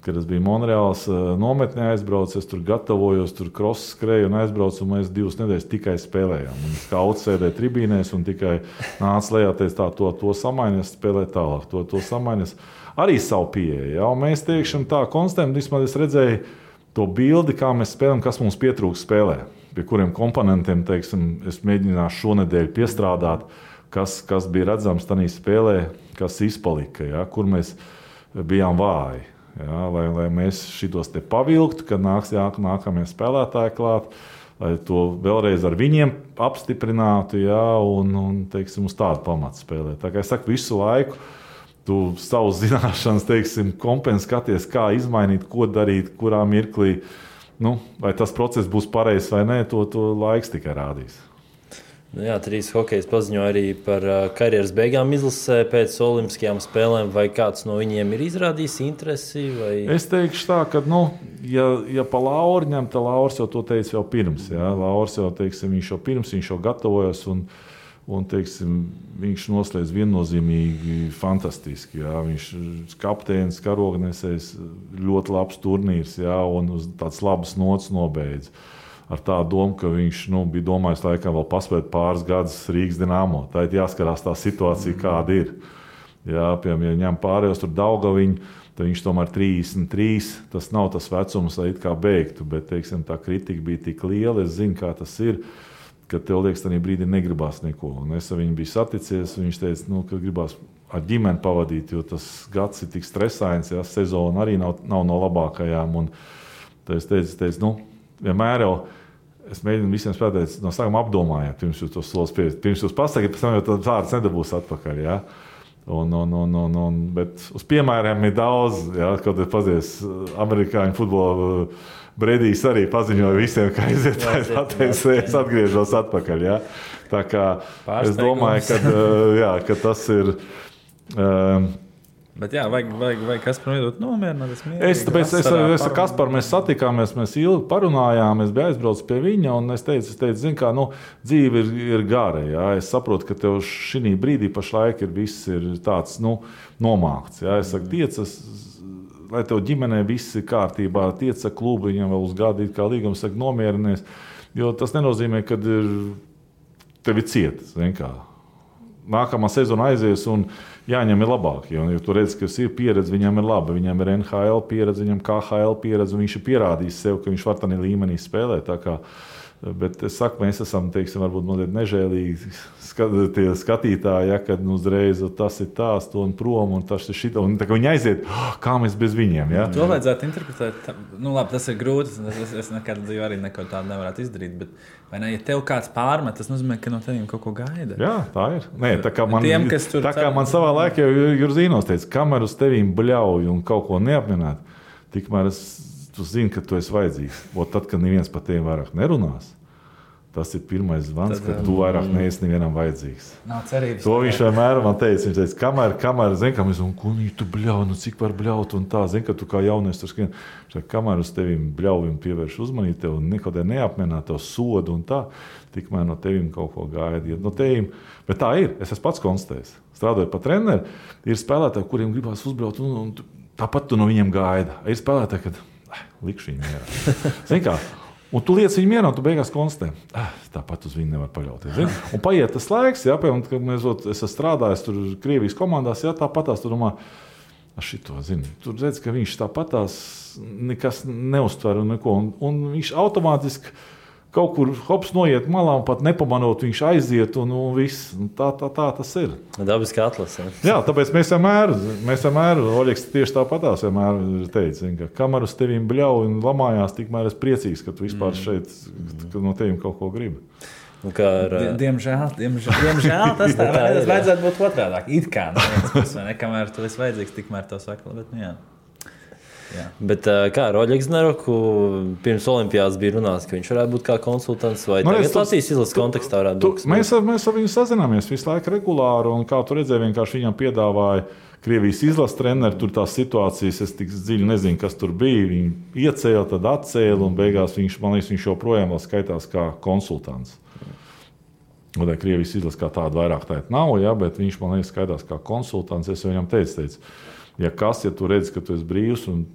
kad es biju Monreāls nometnē aizbraucis, es tur gatavojos, tur cross skrēju un aizbraucu, un mēs 2 nedēļas tikai spēlējām. Un skauts sēdēja tribīnēs un tikai nāca lejā, teica, to samainies, spēlē tālāk, to samainies. Arī savu pieeju, ja? Un mēs teikšam tā, konstatējam, vismaz es redzēju to bildi, kā mēs spēlējam, kas mums pietrūks spēlē, pie kuriem komponentiem, teiksim, es mēģināšu šonedēļ piestrādāt, kas bija redzams tajā spēlē, kas izpalika, ja? Kur mēs bijām vāji. Ja, lai mēs šitos te pavilktu, kad nāks nākamie spēlētāji klāt, lai to vēlreiz ar viņiem apstiprinātu, ja, un teiksim, uz tādu pamatu spēlēt. Tā kā es saku, visu laiku tu savus zināšanas, teiksim, skaties, kā izmainīt, ko darīt, kurā mirklī, vai tas process būs pareizs vai nē, to laiks tikai rādīs. Jā, 3 hokejs paziņoja arī par karjeras beigām izlasē pēc olimpiskajām spēlēm. Vai kāds no viņiem ir izrādījis interesi? Vai... Es teikšu tā, ka, ja pa Lauru ņem, tad Lauris jau to teica jau pirms. Ja? Lauris jau, teiksim, viņš jau gatavojas un teiksim, viņš noslēdz viennozīmīgi fantastiski. Ja? Viņš kapteinis, karognesējs, ļoti labs turnīrs, ja? Un uz tāds labas nots nobeidz. Ar tādu domu, ka viņš bija domājis, laikam vēl paspēt pāris gadus Rīgas Dinamo. Tā ir jāskarās tā situācija, kāda ir. Jā, piemēram, ja ņem pārējos tur Daugaviņu, tad viņš tomēr 33. Tas nav tas vecums, lai it kā beigtu, bet, teiksim, tā kritika bija tik liela, es zinu, kā tas ir, ka tev liekas, tajā brīdī negribās neko. Un es ar viņu biju saticies, viņš teica, ka gribās ar ģimeni pavadīt, jo tas gads ir tik stresains, ja, sezona arī nav no labākajām. Un tad es teicu, vienmēr jau es mēģinu visiem spēlētājiem no sākuma apdomājiet, pirms jūs to solis pieviet. Pirms jūs pasakiet, pēc tam jau tādas vārdas nedabūs atpakaļ. Ja? Bet uz piemēriem ir daudz, ja? Kaut ir pazies amerikāņu futbola Bredijs arī paziņoja visiem, ka aiziet, es atgriežos atpakaļ. Ja? Tā kā es domāju, ka tas ir... Bet jā, vajag Kasparam iedot nomierināt. Es ar Kasparu mēs satikāmies, mēs ilgi parunājām, es biju aizbraucis pie viņa, un es teicu, zini kā, dzīve ir gara, jā. Es saprotu, ka tev šī brīdī pašlaik viss ir tāds, nomākts, jā. Es saku, tiecas, lai tev ģimenē viss ir kārtībā, tieca klubu, viņam vēl uz gadu it kā līgums, saku, nomierinies, jo tas nenozīmē, ka tev ir cieta, zini kā. Nākamā sezona aizies un jāņem ir labāk. Jo tu redzi, ka ir pieredze, viņam ir laba. Viņam ir NHL pieredze, viņam KHL pieredze, un viņš ir pierādījis sev, ka viņš var tādā līmenī spēlēt. Bet es saku, mēs esam, teiksim, varbūt mazliet nežēlīgi skatītāji, ja, kad uzreiz tas ir tās, to un prom, un tas ir šito, un tā kā viņi aiziet, kā mēs bez viņiem. Ja? To vajadzētu interpretēt. Labi, tas ir grūti, es nekad dzīvē arī neko tādu nevarētu izdarīt, bet vai ne, ja tev kāds pārmet, tas nozīmē, ka no teviem kaut ko gaida. Jā, tā ir. Nē, tā kā man savā laikā Jurzīnos teica, kamēr uz tevīm bļauj un kaut ko neapmienāt, tikmēr tu zini, ka tu esi vajadzīgs. Tad, kad neviens par tiem vairāk nerunās, Tas ir pirmais zvans, ka tu vairāk neesi nevienam vajadzīgs. Nav cerības. To viņš vienmēr man teica. Viņš teica, kamēr zin, ka mēs tu bļauj, cik var bļaut un tā. Zin, ka tu kā jaunies tur skrien. Kamēr uz tevim bļaujam pievērš uzmanību tev un nekādē neapmienā tev sodu un tā, tikmēr no tevim kaut ko gaida. No tevim. Bet tā ir. Es esmu pats konstatējis. Strādājot pa treneri, ir spēlētāji, kuriem gribās uzbraukt un tāpat tu no viņiem gaida. Ir spēlētāji, kad likšu viņiem mierā. Zin kā? Un tu liec viņu mierā, un tu beigās konstatē, tāpat uz viņu nevar paļauties. Zini? Un paiet tas laiks, piemēram, kad es esmu strādājis tur Krievijas komandās, tāpatās tu domā, šito, zini, tur redz, ka viņš tāpatās nekas neuztver un neko, un viņš automātiski kaut kur hops noiet malā un pat nepamanot, viņš aiziet un viss. Tā tas ir. Dabiski atlase. Jā, tāpēc mēs vienmēr, Oļegs tieši tāpatās vienmēr teica, ka kamēr uz tevim bļauj un lamājās, tikmēr es priecīgs, ka tu vispār šeit, ka no tevim kaut ko gribi. Diemžēl tas tā ir. Vajadzētu būt otrādāk. It kā, kamēr tu esi vajadzīgs, tikmēr to saka, bet jā. Jā. Bet kā ar Oļegu Znaroku pirms olimpiādas bija runāts, ka viņš varētu būt kā konsultants vai tagad Latvijas izlases kontekstā varētu būt? Mēs ar viņu sazināmies visu laiku regulāri, un kā tu redzēji, vienkārši viņam piedāvāja Krievijas izlases treneri, tur tās situācijas, es tik dziļi nezinu, kas tur bija, viņi iecēla, tad atcēla, un beigās viņš joprojām vēl skaitās kā konsultants. Un Krievijas izlases kā tāda vairāk tāda nav, ja, bet viņš man liekas skaitās kā konsultants, es viņam teicu, ja tu redzi, ka tu esi brīvs un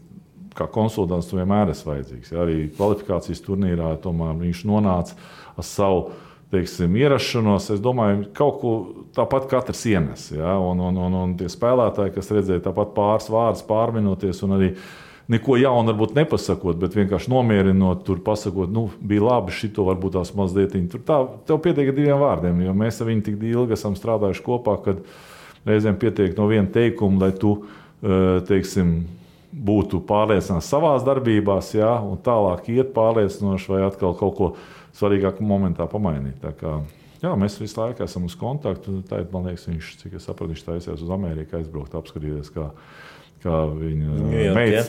kā konsultants tu vienmēr esi vajadzīgs. Ja, arī kvalifikācijas turnīrā tomēr viņš nonāca ar savu, ierašanos. Es domāju, kaut ko tāpat katrs ienes. Ja, un tie spēlētāji, kas redzēja tāpat pāris vārdus pārminoties un arī neko jaunu varbūt nepasakot, bet vienkārši nomierinot, tur pasakot, bija labi, šito varbūt tās mazlietiņi. Tur tev pietiek ar 2 vārdiem, jo mēs ar viņu tik ilgi esam strādājuši kopā, kad reizēm pietiek no viena teikuma, lai tu, būtu pārliecināts savās darbībās, ja, un tālāk iet pārliecinoši vai atkal kaut ko svarīgāku momentā pamainīt. Tā kā, jā, mēs visu laiku esam uz kontaktu. Tātad, man liekas, cik es sapratu, viņš taisījās uz Ameriku aizbraukt, apskatīties, kā viņa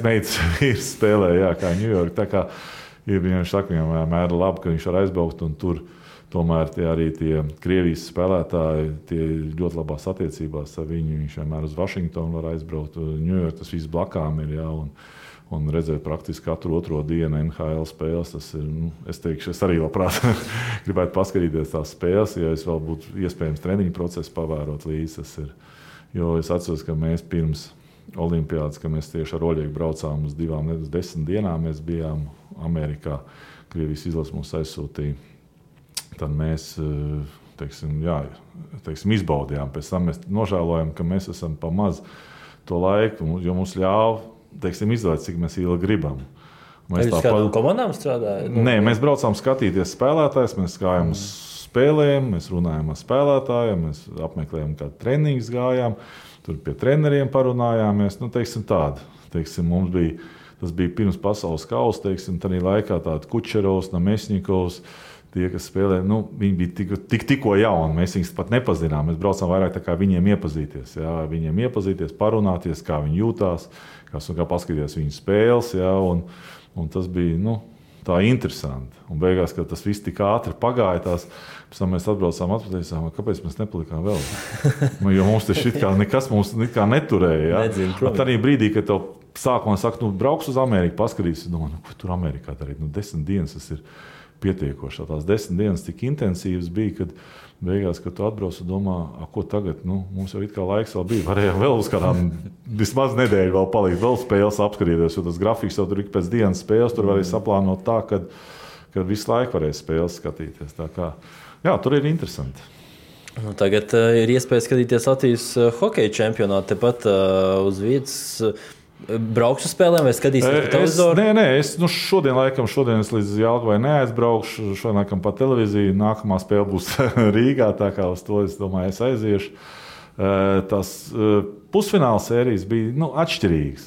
meitas vīrs spēlē, jā, kā Ņujorka. Tā kā viņš saka, viņam vienmēr ir labi, ka viņš var aizbraukt un tur tomēr arī tie Krievijas spēlētāji tie ļoti labās attiecībās ar viņu. Viņš vienmēr uz Vašingtonu var aizbraukt. Ņujorka tas viss blakām ir, jā, un redzēt praktiski katru otro dienu NHL spēles. Tas ir, es teikšu, es arī labprāt gribētu paskatīties tās spēles, ja es vēl būtu iespējams treniņu procesu pavērot līdzi. Tas ir, jo es atceros, ka mēs pirms olimpiādas, ka mēs tieši ar Oļegu braucām uz 10 dienām, mēs bijām Amerikā, Krievijas izlases mūs aizsūtīja. Tad mēs izbaudījām. Pēc tam mēs nožēlojam, ka mēs esam pa maz to laiku, jo mums ļāva izvēlēt, cik mēs ilgi gribam. Mēs kādām komandām strādājam? Nē, mēs braucām skatīties spēlētājus, mēs gājām uz spēlēm, mēs runājām ar spēlētājiem, mēs apmeklējām kādu treniņus gājām, tur pie treneriem parunājāmies. Mums bija, tas bija pirms pasaules kausa, tādā laikā tādi Kučerovs, Namesņikovs, tie, kas spēlē, viņi bija tikko jauni, mēs viņus pat nepazinām. Mēs braucām vairāk tā kā viņiem iepazīties, jā, parunāties, kā viņi jūtās, kā paskatīties viņu spēles, jā, un tas bija, tā interesanti. Un beigās, kad tas viss tik ātri pagāja, pēc tam mēs atbraucām atpakaļ, kāpēc mēs nepalikām vēl? Jo mums tas nekas mums neturēja, jā. Tādā brīdī, kad tev sākumā saka, brauks uz Ameriku, paskatīsies, ko tur Amerikā darīt? 10 dienas tas ir pietiekoši. Tās 10 dienas tik intensīvas bija, kad beigās, kad tu atbrauc un domā, ko tagad, mums jau it kā laiks vēl bija, varējām vēl uz kādām vismaz nedēļu vēl palikt, vēl spēles apskatīties, jo tas grafiks jau tur ik pēc dienas spēles, tur varēja saplānot tā, kad visu laiku varēja spēles skatīties. Tā kā, jā, tur ir interesanti. Tagad ir iespēja skatīties Latvijas hokeja čempionātu tepat uz vietas. Brauks uz spēlēm vai skatīsies pa televizoru? Nē, es šodien es līdz Jelgavai neaizbraukšu, šodien laikam pa televīziju, nākamā spēle būs Rīgā, tā kā uz to, es domāju, es aiziešu. Tas pusfināla sērijas bija atšķirīgas.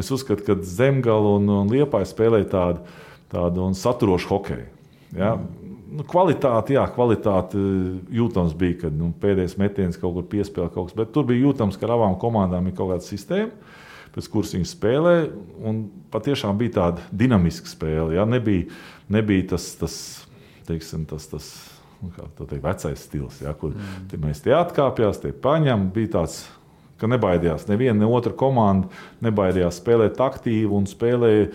Es uzskatu, ka Zemgala un Liepāja spēlēja tādu un saturošu hokeju. Ja? Kvalitāte jūtams bija, kad pēdējais metiens kaut kur piespēlē kaut kas, bet tur bija jūtams, ka ar abām komandām ir kaut kāda sistēma, pēc kuras viņi spēlē, un patiešām bija tāda dinamiska spēle. Ja? Nebija tas teiksim, tas kā to teikt, vecais stils, ja, kur mēs tie atkāpjās, tie paņem, bija tāds, ka nebaidījās. Neviena, ne otra komanda nebaidījās spēlēt aktīvi un spēlēja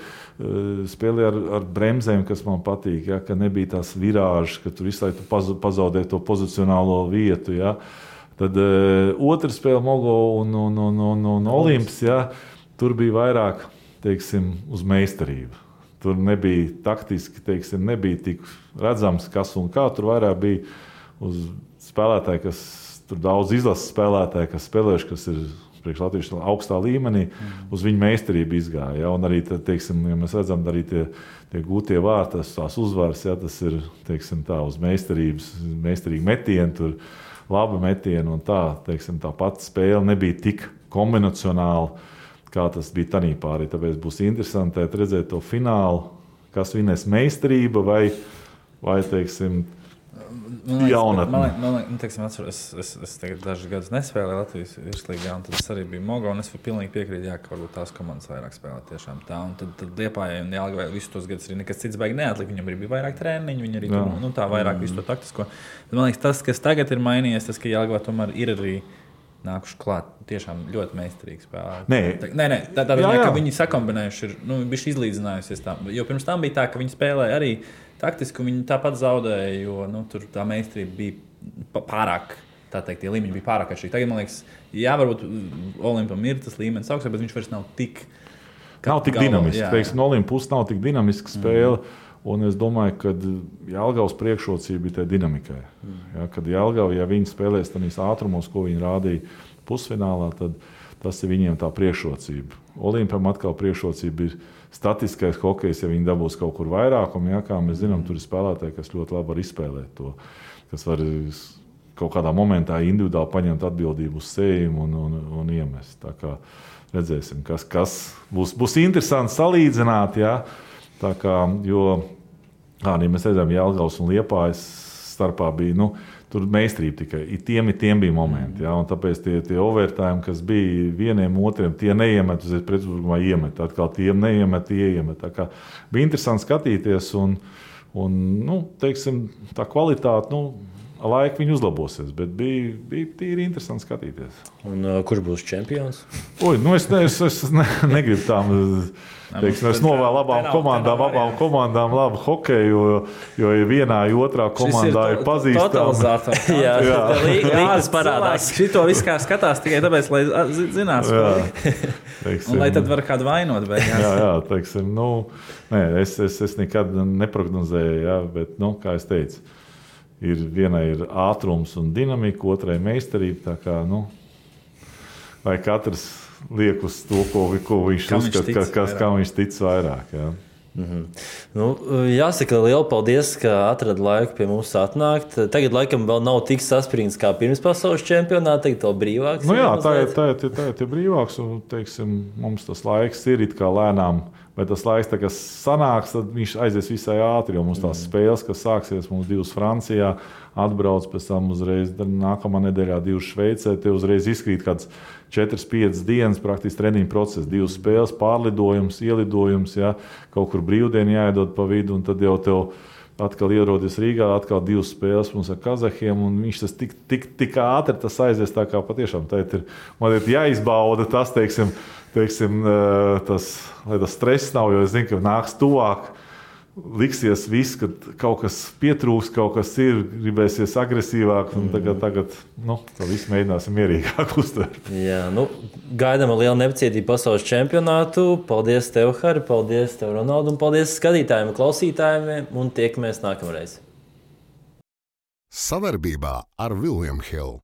ar bremzēm, kas man patīk. Ja, ka nebija tās virāžas, ka tur visu laiku pazaudē to pozicionālo vietu. Ja. Tad otra spēle Mogo un Olimps, ja, tur bija vairāk, teiksim, uz meistarību. Tur nebija taktiski, teiksim, nebija tik redzams, kas un kā. Tur vairāk bija uz spēlētāji, kas tur daudz izlases spēlētāji, kas spēlējuši, kas ir priekš latviešu augstā līmenī, uz viņu meistarību izgāja. Ja? Un arī, teiksim, ja mēs redzam, arī tie gūtie vārti, tās uzvaras, ja? Tas ir, teiksim, tā uz meistarīgi metieni, tur labi metieni un tā, teiksim, tā pati spēle nebija tik kombinacionāla, kā tas bija tanī pārī. Tāpēc būs interesanti redzēt to finālu, kas vinēs meistarība vai teiksim, jaunatne. Man liekas, es tagad dažus gadus nespēlēju Latvijas virslīgā, un tad es arī biju Mogo, un es pilnīgi piekrītu, jā, ka varbūt tās komandas vairāk spēlē tiešām tā. Un tad Liepājai un Jelgavai visus tos gadus arī nekas cits baigi neatlika. Viņam arī bija vairāk treniņu, viņi arī tā vairāk visu to taktisko. Bet man liekas, tas, kas tagad ir mainījies, tas, ka Jelgava tomēr ir arī nākuši klāt. Tiešām ļoti meistarīgi spēlē. Nē, tādā ziņā, ka viņi sakombinējuši ir, bišķi izlīdzinājusies tā. Jo pirms tam bija tā, ka viņi spēlēja arī taktiski, un viņi tāpat zaudēja, jo tur tā meistarība bija pārāk, tā teikt, tie līmeņi bija pārāk atšķirīgi. Tagad, man liekas, jā, varbūt Olimpam ir tas līmenis augstāk, bet viņš vairs nav tik dinamisks. Teiksim, no Olimpa puses nav tik dinamiska spēle, un es domāju, ka Jelgavas priekšrocība bija tajā dinamikai. Ja, kad Jelgava, ja viņi spēlēs tādīs ātrumos, ko viņi rādīja pusfinālā, tad tas ir viņiem tā priekšrocība. Olimpam atkal priekšrocība ir statiskais hokejs, ja viņi dabūs kaut kur vairākumu, ja, kā mēs zinām, tur ir spēlētāji, kas ļoti labi var izspēlēt to, kas var kaut kādā momentā individuāli paņemt atbildību uz sevi un iemest. Tā kā redzēsim, kas būs interesanti salīdzināt, ja, tā kā, jo, mēs redzam, Jelgavas un Liepājas starpā bija, tur meistarība tikai. Tiem bija momenti. Ja, un tāpēc tie overtime, kas bija vieniem otriem, tie neiemet, uz pretuzbrukuma iemet. Atkal tiem neiemet, tie iemet. Tā kā bija interesanti skatīties un teiksim, tā kvalitāte, laika viņi uzlabosies, bet bija tīri interesanti skatīties. Un kurš būs čempions? Es negribu tām... Teiksim, es novēlu abām komandām labu hokeju, jo vienā, otrā komandā ir pazīstama. Jā, līgas parādās. Šito viss kā skatās tikai tāpēc, lai zinās. Un lai tad var kādu vainot. Jā, teiksim, es nekad neprognozēju, jā, bet, kā es teicu, vienai ir ātrums un dinamika, otrai meistarība, tā kā, vai katrs liek uz to, ko viņš uzskata, kam viņš tic vairāk. Jā. Jāsaka, liela paldies, ka atrada laiku pie mums atnākt. Tagad laikam vēl nav tik saspringts kā pirms pasaules čempionāta, tagad vēl brīvāks. Tā ir brīvāks, un, teiksim, mums tas laiks ir it kā lēnām, bet tas laiks, kas sanāks, tad viņš aizies visai ātri, jo mums tās spēles, kas sāksies, mums 2 Francijā, atbrauc pēc tam uzreiz nākamā nedēļā 2 Šveicē, te uzreiz izkrīt kāds 4-5 dienas praktiski treniņu process, 2 spēles, pārlidojums, ielidojums, ja, kaut kur brīvdienu jāiedod pa vidu, un tad jau tev atkal ierodas Rīgā, atkal 2 spēles mums ar kazahiem, un viņš tas tik ātri tas aizies, tā kā patiešām man ir jāizbauda tas, teiksim, tas, lai tas stress nav, jo es zinu, ka nāks tuvāk, liksies viss, ka kaut kas pietrūks, kaut kas ir, gribēsies agresīvāk, un tagad to visu mēģināsim mierīgāk uztvert. Jā, gaidām ar lielu nepacietību pasaules čempionātu. Paldies tev, Hari, paldies tev, Ronaldu, un paldies skatītājiem un klausītājiem, un tiekamies nākamreiz. Savarbībā ar William Hill.